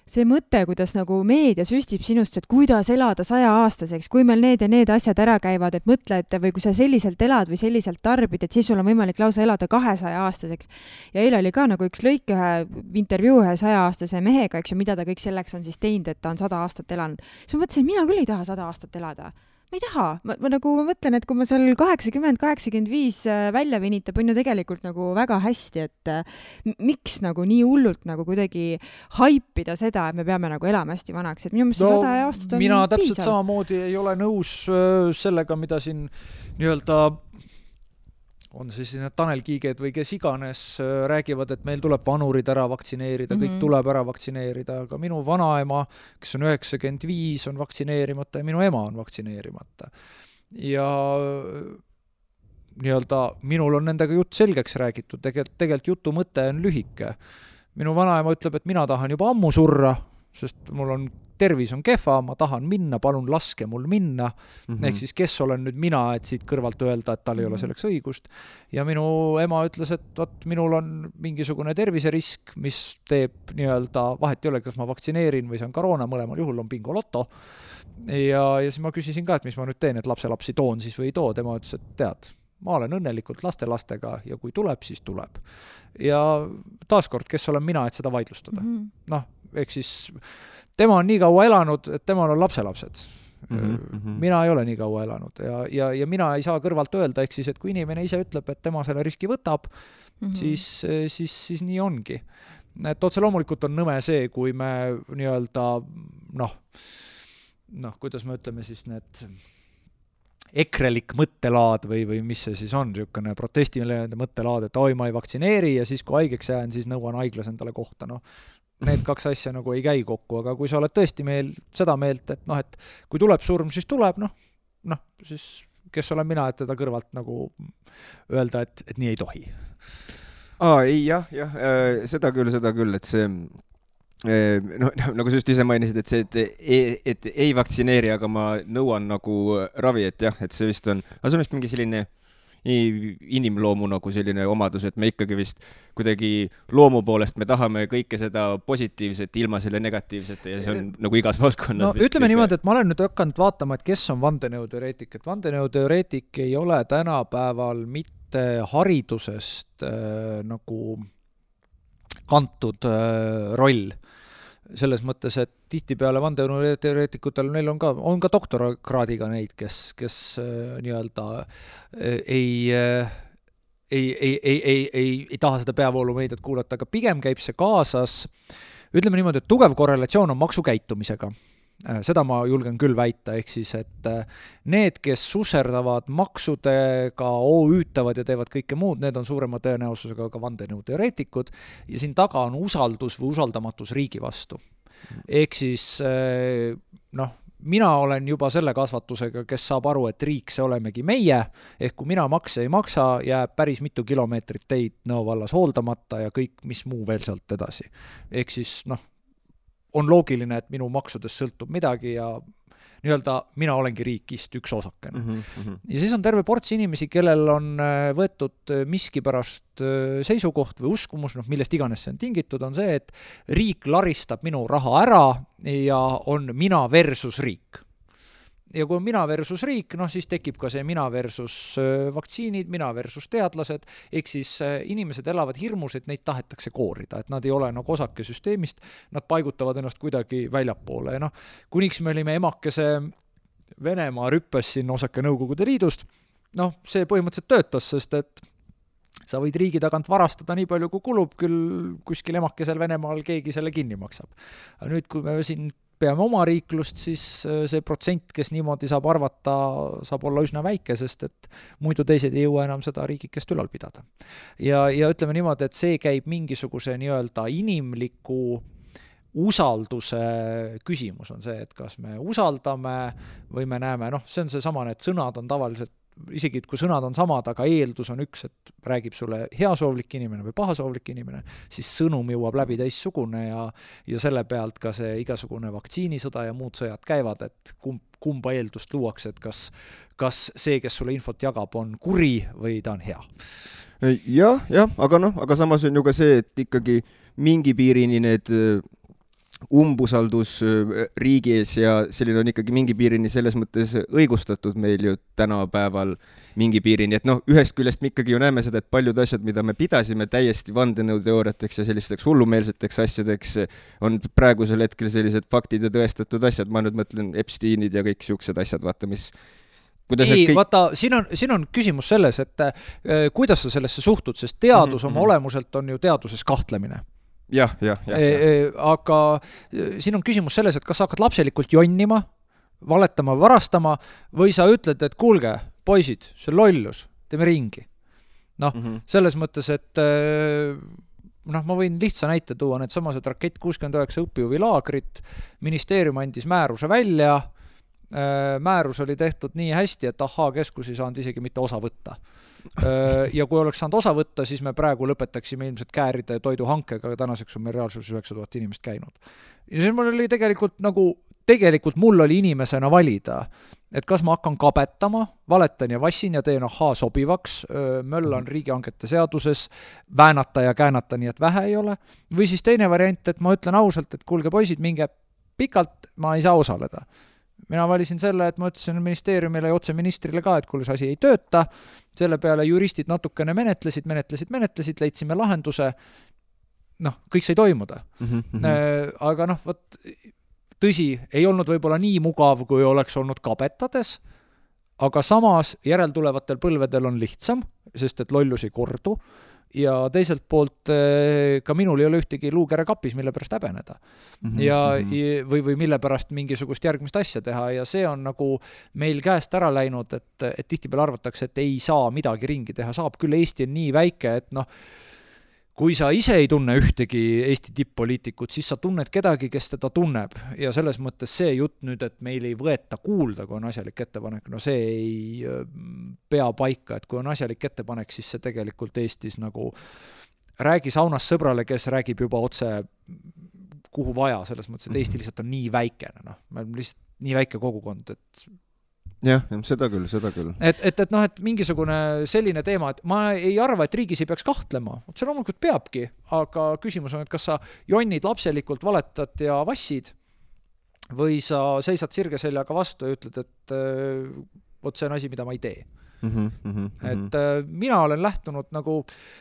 see mõte, kuidas nagu meedia süstib sinust, et kuidas elada 100-aastaseks, kui meil need ja need asjad ära käivad, et mõtle, et või kui sa selliselt elad või selliselt tarbid, et siis sul on võimalik lausa elada 200-aastaseks. Ja eile oli ka nagu üks lõik intervjuu ühe 100-aastase mehega, eks ju, mida ta kõik selleks on siis teinud, et ta on 100 aastat elanud. Siis ma mõtlesin, et mina küll ei taha 100 aastat elada. Ma ei taha. Ma mõtlen, et kui ma seal 80-85 välja venitab, on ju tegelikult nagu väga hästi, et miks nagu nii hullult nagu kuidagi haipida seda, et me peame nagu elama hästi vanaks, et minu mõttes 100 aastat on mina täpselt piisav. samamoodi ei ole nõus sellega, mida siin nii-öelda on siis need Tanel Kiiged või kes iganes räägivad, et meil tuleb vanurid ära vaktsineerida, kõik tuleb ära vaktsineerida, aga minu vanaema, kes on 95, on vaktsineerimata ja minu ema on vaktsineerimata. Ja nii-öelda minul on nendega jutt selgeks räägitud, tegelikult jutu mõte on lühike. Minu vanaema ütleb, et mina tahan juba ammu surra, sest mul on tervis on kehva, ma tahan minna, palun laske mul minna. Ehk siis kes olen nüüd mina, et siit kõrvalt öelda, et tal ei ole selleks õigust. Ja minu ema ütles, et võt, minul on mingisugune terviserisk, mis teeb nii-öelda, vahet ei ole, kas ma vaktsineerin või see on koroona, mõlemal juhul on bingoloto. Ja siis ma küsisin ka, et mis ma nüüd teen, et lapselapsi toon siis või ei too. Tema ütles, et tead, ma olen õnnelikult lastega ja kui tuleb, siis tuleb. Ja taaskord, kes olen mina, et seda vaidlustada? Noh, ehk siis tema on nii kaua elanud, et temal on lapselapsed. Mina ei ole nii kaua elanud ja mina ei saa kõrvalt öelda, ehk siis, et kui inimene ise ütleb, et tema selle riski võtab, siis nii ongi. Et otse loomulikult on nõme see, kui me nii-öelda kuidas me ütleme siis need ekrelik mõttelaad või mis see siis on, niisugune protestiline mõttelaad, et oi, ma ei vaktsineeri ja siis kui haigeks jään, siis nõuan haiglas endale kohta. Need kaks asja nagu ei käi kokku, aga kui sa oled tõesti seda meelt, et et kui tuleb surm, siis tuleb, siis kes olen mina, et teda kõrvalt nagu öelda, et nii ei tohi. Ei, jah, seda küll, et see nagu sa just ise mainisid, et see, et ei vaktsineeri, aga ma nõuan nagu ravi, et jah, et see vist on, aga see on vist mingi selline inimloomu nagu selline omadus, et me ikkagi vist kuidagi loomu poolest me tahame kõike seda positiivset ilma selle negatiivsete ja see on nagu igas valdkonnas. Ütleme niimoodi, et ma olen nüüd hakanud vaatama, et kes on vandenõuteoreetik, et vandenõuteoreetik ei ole tänapäeval mitte haridusest nagu kantud roll. Selles mõttes, et tihtipeale vandenõuteoreetikutel neil on ka doktorakraadiga neid, kes nii-öelda ei taha seda peavoolumeediat kuulata, aga pigem käib see kaasas, ütleme niimoodi, et tugev korrelatsioon on maksukäitumisega. Seda ma julgen küll väita, ehk siis, et need, kes susserdavad maksudega, OÜ-tavad ja teevad kõike muud, need on suurema tõenäosusega ka vandenõuteoreetikud ja siin taga on usaldus või usaldamatus riigi vastu. Ehk siis, mina olen juba selle kasvatusega, kes saab aru, et riik see olemegi meie, ehk kui mina makse ei maksa, jääb päris mitu kilomeetrit teid Nõo vallas hooldamata ja kõik, mis muu veel sealt edasi. Ehk siis, on loogiline, et minu maksudest sõltub midagi ja nii-öelda mina olengi riikist üks osakene. Ja siis on terve ports inimesi, kellel on võetud miski pärast seisukoht või uskumus, millest iganes see on tingitud, on see, et riik laristab minu raha ära ja on mina versus riik. Ja kui on mina versus riik, siis tekib ka see mina versus vaktsiinid, mina versus teadlased, ehk siis inimesed elavad hirmus, et neid tahetakse koorida, et nad ei ole nagu osake süsteemist, nad paigutavad ennast kuidagi väljapoole ja kuniks me olime emakese Venemaa rüppes siin osake Nõukogude Liidust, see põhimõtteliselt töötas, sest et sa võid riigi tagant varastada nii palju, kui kulub, küll kuskil emakesel Venemaal keegi selle kinni maksab. Aga nüüd, kui me siin peame oma riiklust, siis see protsent, kes niimoodi saab arvata, saab olla üsna väike, sest et muidu teised ei jõua enam seda riigikest ülal pidada. Ja ütleme niimoodi, et see käib mingisuguse nii-öelda inimliku usalduse küsimus on see, et kas me usaldame või me näeme, see on see sama, et sõnad on tavaliselt isegi kui sõnad on samad, aga eeldus on üks, et räägib sulle heasoovlik inimene või pahasoovlik inimene, siis sõnum jõuab läbi teissugune ja selle pealt ka see igasugune vaktsiinisõda ja muud sõjad käivad, et kumba eeldust luuakse, et kas see, kes sulle infot jagab, on kuri või ta on hea. Jah, aga samas on ju ka see, et ikkagi mingi piirini need umbusaldus riigi ees ja selline on ikkagi mingi piirini selles mõttes õigustatud meil ju tänapäeval mingi piirini, et noh, ühest küljest me ikkagi ju näeme seda, et paljud asjad, mida me pidasime täiesti vandenõuteooriateks ja sellisteks hullumeelseteks asjadeks, on praegusel hetkel sellised faktid ja tõestatud asjad, ma nüüd mõtlen Epsteinid ja kõik siuksed asjad, vaata, mis vaata, siin on küsimus selles, et kuidas sa sellesse suhtud, sest teadus oma olemuselt on ju teaduses kahtlemine. Jah. Aga siin on küsimus selles, et kas sa hakkad lapselikult jonnima, valetama, varastama või sa ütled, et kuulge, poisid, see lollus, teeme ringi. Noh, selles mõttes, et ma võin lihtsa näite tuua, need samased Rakett 69 õpijuvilaagrit, ministeerium andis määruse välja, määrus oli tehtud nii hästi, et keskus ei saanud isegi mitte osa võtta. Ja kui oleks saanud osa võtta, siis me praegu lõpetaksime ilmselt kääride ja toiduhankega, aga tänaseks on meil reaalsuses 9000 inimest käinud. Ja siis mul oli tegelikult mul oli inimesena valida, et kas ma hakkan kabetama, valetan ja vassin ja teen sobivaks, möllan riigihangete seaduses, väänata ja käänata nii, et vähe ei ole, või siis teine variant, et ma ütlen ausalt, et kuulge poisid, minge pikalt, ma ei saa osaleda. Mina valisin selle, et ma ütlesin ministeeriumile ja otse ministrile ka, et kuule, see asi ei tööta, selle peale juristid natukene menetlesid, leidsime lahenduse, kõik sai toimuda. Aga võt, tõsi, ei olnud võib-olla nii mugav, kui oleks olnud kabetades, aga samas järeltulevatel põlvedel on lihtsam, sest et lollus ei kordu, ja teiselt poolt ka minul ei ole ühtegi luukere kapis, mille pärast häbeneda. Või mille pärast mingisugust järgmist asja teha ja see on nagu meil käest ära läinud, et tihtipeale arvatakse, et ei saa midagi ringi teha, saab küll, Eesti on nii väike, et kui sa ise ei tunne ühtegi Eesti tipp-poliitikut, siis sa tunned kedagi, kes teda tunneb ja selles mõttes see jutt nüüd, et meil ei võeta kuulda, kui on asjalik ettepanek, see ei pea paika, et kui on asjalik ettepanek, siis see tegelikult Eestis nagu räägi saunas sõbrale, kes räägib juba otse kuhu vaja, selles mõttes, et Eesti lihtsalt on nii väikene, me oleme lihtsalt nii väike kogukond, et jah, seda küll. Et mingisugune selline teema, et ma ei arva, et riigis ei peaks kahtlema. See loomulikult peabki, aga küsimus on, et kas sa jonnid lapselikult, valetad ja vassid või sa seisad sirge seljaga vastu ja ütled, et see on asi, mida ma ei tee. Et mina olen lähtunud nagu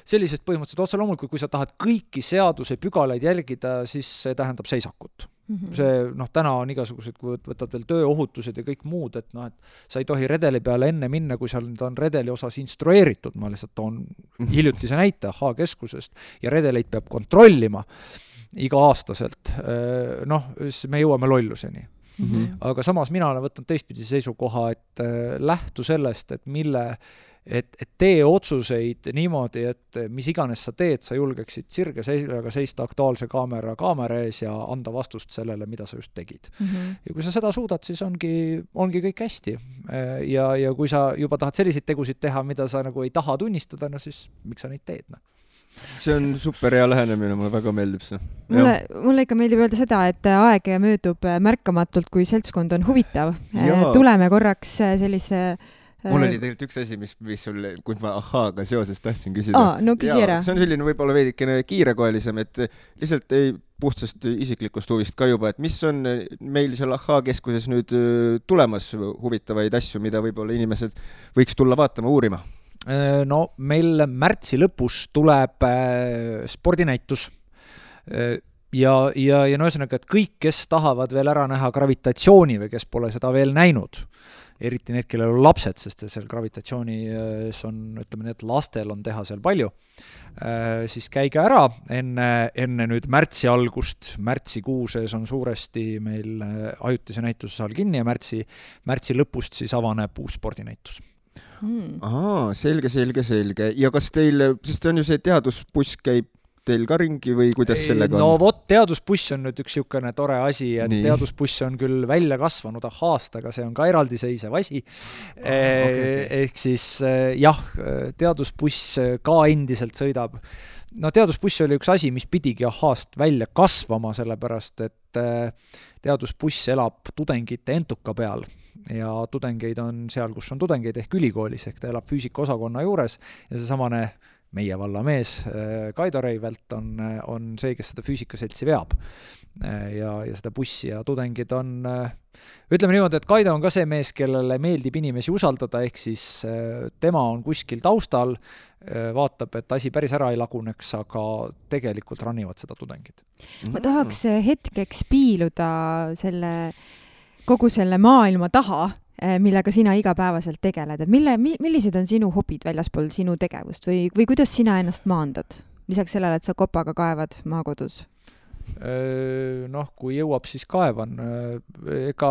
sellisest põhimõtteliselt otse loomulikult, kui sa tahad kõiki seaduse pügalaid jälgida, siis see tähendab seisakut. See, täna on igasugused, kui võtad veel tööohutused ja kõik muud, et sa ei tohi redeli peale enne minna, kui seal on redeli osas instrueeritud, ma lihtsalt toon hiljutise näite keskusest ja redeleid peab kontrollima iga-aastaselt. Me jõuame lolluseni. Aga samas mina olen võtnud teistpidi seisukoha, et lähtu sellest, et tee otsuseid niimoodi, et mis iganes sa teed, sa julgeksid sirge seljaga seista Aktuaalse kaamera ees ja anda vastust sellele, mida sa just tegid. Ja kui sa seda suudad, siis ongi kõik hästi. Ja kui sa juba tahad selliseid tegusid teha, mida sa nagu ei taha tunnistada, siis miks sa neid teed? See on super hea lähenemine, mulle väga meeldib see. Mulle ikka meeldib öelda seda, et aeg möödub märkamatult, kui seltskond on huvitav. Tuleme korraks sellise mul oli tegelikult üks asi, mis sul, kui ma ahhaaga seoses tahtsin küsida. Küsi ära. See on selline võib-olla veidikene kiirekoelisem, et lihtsalt puhtsast isiklikust huvist ka juba, et mis on meil seal keskuses nüüd tulemas huvitavaid asju, mida võib-olla inimesed võiks tulla vaatama, uurima? Meil märtsi lõpus tuleb spordinäitus ja ühesõnaga, et kõik, kes tahavad veel ära näha gravitatsiooni või kes pole seda veel näinud, eriti need, kellel on lapsed, sest seal gravitatsioonis on, ütleme nii, et lastel on teha seal palju, siis käige ära enne nüüd märtsi algust. Märtsikuuses on suuresti meil ajutise näituse saal kinni ja märtsi lõpust siis avaneb uus spordinäitus. Selge. Ja kas teil, sest on ju see teadusbuss käib teil ka ringi või kuidas sellega on? Teadusbuss on nüüd üks niisugune tore asi, et teadusbuss on küll välja kasvanud aastaga, see on ka eraldiseisev asi. Ehk siis teadusbuss ka endiselt sõidab. Teadusbuss oli üks asi, mis pidigi aast välja kasvama, sellepärast et teadusbuss elab tudengite entuka peal ja tudengeid on seal, kus on tudengeid ehk ülikoolis, ehk ta elab füüsikaosakonna juures ja see samane meie valla mees Kaido Reivelt on see, kes seda füüsikaseltsi veab. ja seda bussi ja tudengid on, ütleme niimoodi, et Kaido on ka see mees, kellele meeldib inimesi usaldada, ehk siis tema on kuskil taustal, vaatab, et asi päris ära ei laguneks, aga tegelikult ranivad seda tudengid. Ma tahaks hetkeks piiluda kogu selle maailma taha, millega sina igapäevaselt tegeled, et millised on sinu hobid väljaspool sinu tegevust või kuidas sina ennast maandad? Lisaks sellele, et sa kopaga kaevad maakodus? Kui jõuab, siis kaevan. Ega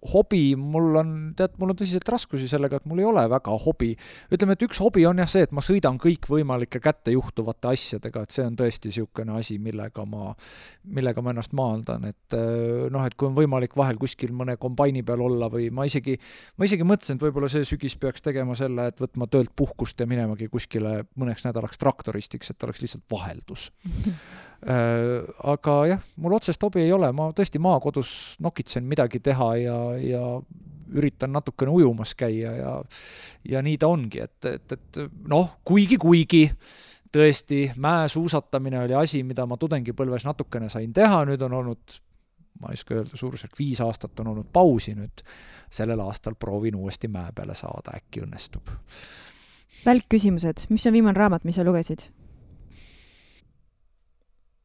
hobi, mul on tõsiselt raskusi sellega, et mul ei ole väga hobi. Ütleme, et üks hobi on jah see, et ma sõidan kõik võimalike kätte juhtuvate asjadega, et see on tõesti niisugune asi, millega ma ennast maandan, et kui on võimalik vahel kuskil mõne kombaini peal olla või ma isegi mõtlesin, et võib-olla see sügis peaks tegema selle, et võtma töölt puhkust ja minemagi kuskile mõneks nädalaks traktoristiks, et oleks lihtsalt vaheldus. Aga jah, mul otsest hobi ei ole, ma tõesti maakodus nokitsen midagi teha ja üritan natukene ujumas käia ja nii ta ongi, et kuigi tõesti mäesuusatamine oli asi, mida ma tudengipõlves natukene sain teha, nüüd on olnud, ma ei oska öelda, suurusjärk 5 aastat on olnud pausi, nüüd sellel aastal proovin uuesti mäe peale saada, äkki õnnestub. Välkküsimused, mis on viimane raamat, mis sa lugesid?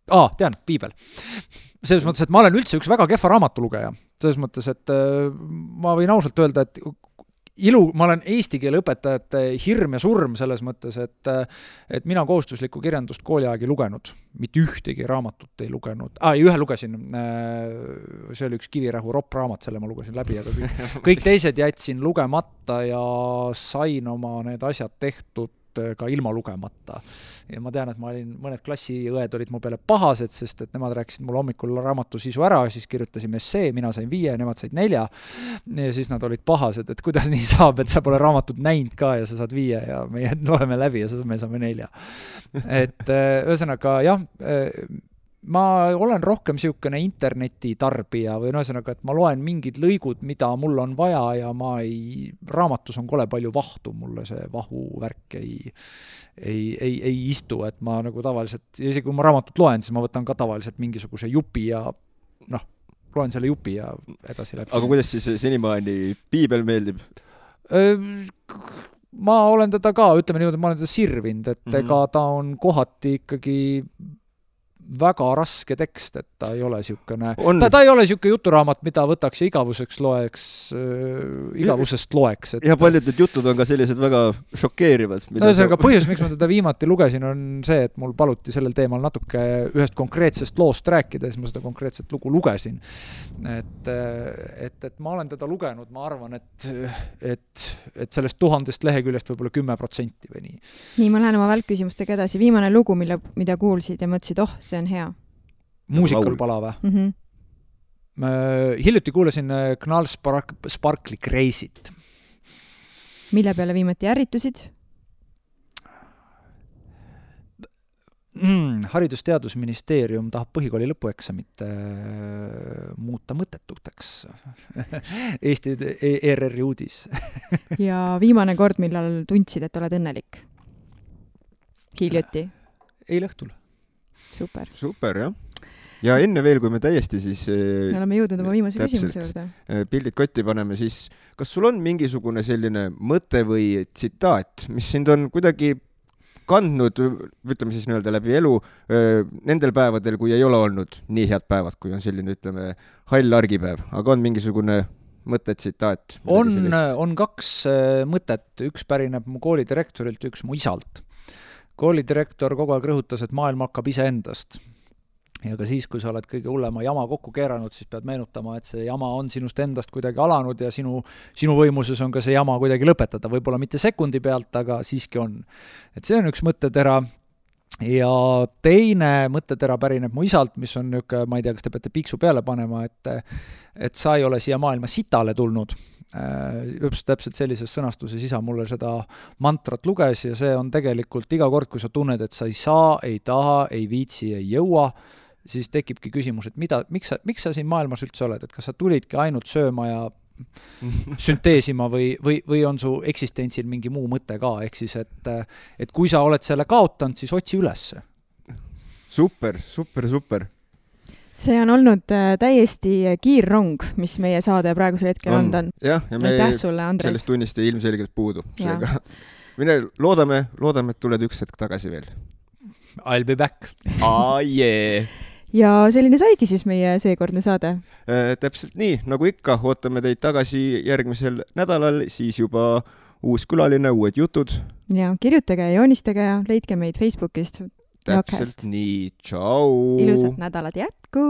Tean, piibel. Selles mõttes, et ma olen üldse üks väga kehva raamatulugeja. Selles mõttes, et ma võin ausalt öelda, et ma olen eesti keele õpetajate hirm ja surm selles mõttes, et mina kohustuslikku kirjandust kooliaegi lugenud. Mitte ühtegi raamatut ei lugenud. Ühe lugesin, see oli üks Kivirähu raamat, selle ma lugesin läbi, aga kõik teised jätsin lugemata ja sain oma need asjad tehtud ka ilma lugemata. Ja ma tean, et mõned klassiõed olid mu peale pahased, sest et nemad rääkisid mulle hommikul raamatu sisu ära, siis kirjutasime essee, mina sain 5 ja nemad said 4 ja siis nad olid pahased, et kuidas nii saab, et sa pole raamatut näinud ka ja sa saad 5 ja me loeme läbi ja me saame 4. Et ühesõnaga jah, ma olen rohkem niisugune internetitarbija või ühesõnaga, et ma loen mingid lõigud, mida mul on vaja ja raamatus on kole palju vahtu, mulle see vahuvärk ei istu, et ma nagu tavaliselt, isegi kui ma raamatut loen, siis ma võtan ka tavaliselt mingisuguse jupi ja loen selle jupi ja edasi läbi. Aga kuidas siis senimaani piibel meeldib? Ma olen teda ka, ütleme niimoodi, ma olen teda sirvinud, et ega ta on kohati ikkagi väga raske tekst, et ta ei ole niisugune, ta ei ole niisugune juturaamat, mida võtaks ja igavusest loeks. Ja paljud need jutud on ka sellised väga šokeerivad. Põhjus, miks ma teda viimati lugesin, on see, et mul paluti sellel teemal natuke ühest konkreetsest loost rääkida, siis ma seda konkreetset lugu lugesin. Et ma olen teda lugenud, ma arvan, et sellest 1000 leheküljest võib-olla 10% või nii. Nii, ma lähen oma välkküsimustega edasi. Viimane lugu, mida kuulsid ja mõtlesid, see on hea. Muusikal pala või? Hiljuti kuulasin Knall Sparkli Crazy't. Mille peale viimati ärritusid? Haridus-teadusministeerium tahab põhikooli lõpueksamit muuta mõttetuteks. Eesti ERR-i uudis. Ja viimane kord, millal tundsid, et oled õnnelik? Hiljuti? Eile õhtul. Super, jah. Ja enne veel, kui me täiesti siis me oleme jõudnud oma viimase küsimuse juurde. Pildid kotti paneme, siis kas sul on mingisugune selline mõte või tsitaat, mis sind on kuidagi kandnud, ütleme siis nii-öelda läbi elu, nendel päevadel, kui ei ole olnud nii head päevad, kui on selline, ütleme, hall argipäev, aga on mingisugune mõte, tsitaat? On 2 mõtet, üks pärineb mu koolidirektorilt, üks mu isalt. Koolidirektor kogu aeg rõhutas, et maailm hakkab iseendast. Ja ka siis, kui sa oled kõige hullema jama kokku keeranud, siis pead meenutama, et see jama on sinust endast kuidagi alanud ja sinu võimuses on ka see jama kuidagi lõpetada. Võib-olla mitte sekundi pealt, aga siiski on. Et see on üks mõttetera. Ja teine mõttetera pärineb mu isalt, mis on niuke, ma ei tea, kas te peate piiksu peale panema, et sa ei ole siia maailma sitale tulnud. Täpselt sellises sõnastuses isa mulle seda mantrat luges ja see on tegelikult iga kord, kui sa tunned, et sa ei saa, ei taha, ei viitsi, ei jõua, siis tekibki küsimus, et miks sa siin maailmas üldse oled, et kas sa tulidki ainult sööma ja sünteesima või on su eksistentsil mingi muu mõte ka, ehk siis, et kui sa oled selle kaotanud, siis otsi ülesse. Super. see on olnud täiesti kiirrong, mis meie saade praegusel hetkel on. Jah, ja me sellest tunnist ei ilmselgelt puudu. Seega mine loodame, et tuled üks hetk tagasi veel. I'll be back. Yeah. Ja selline saigi siis meie seekordne saade. Täpselt nii, nagu ikka, ootame teid tagasi järgmisel nädalal, siis juba uus külaline, uued jutud. Ja kirjutage ja joonistage ja leidke meid Facebookist. Täpselt nii, tšau! Ilusat nädalat jätku!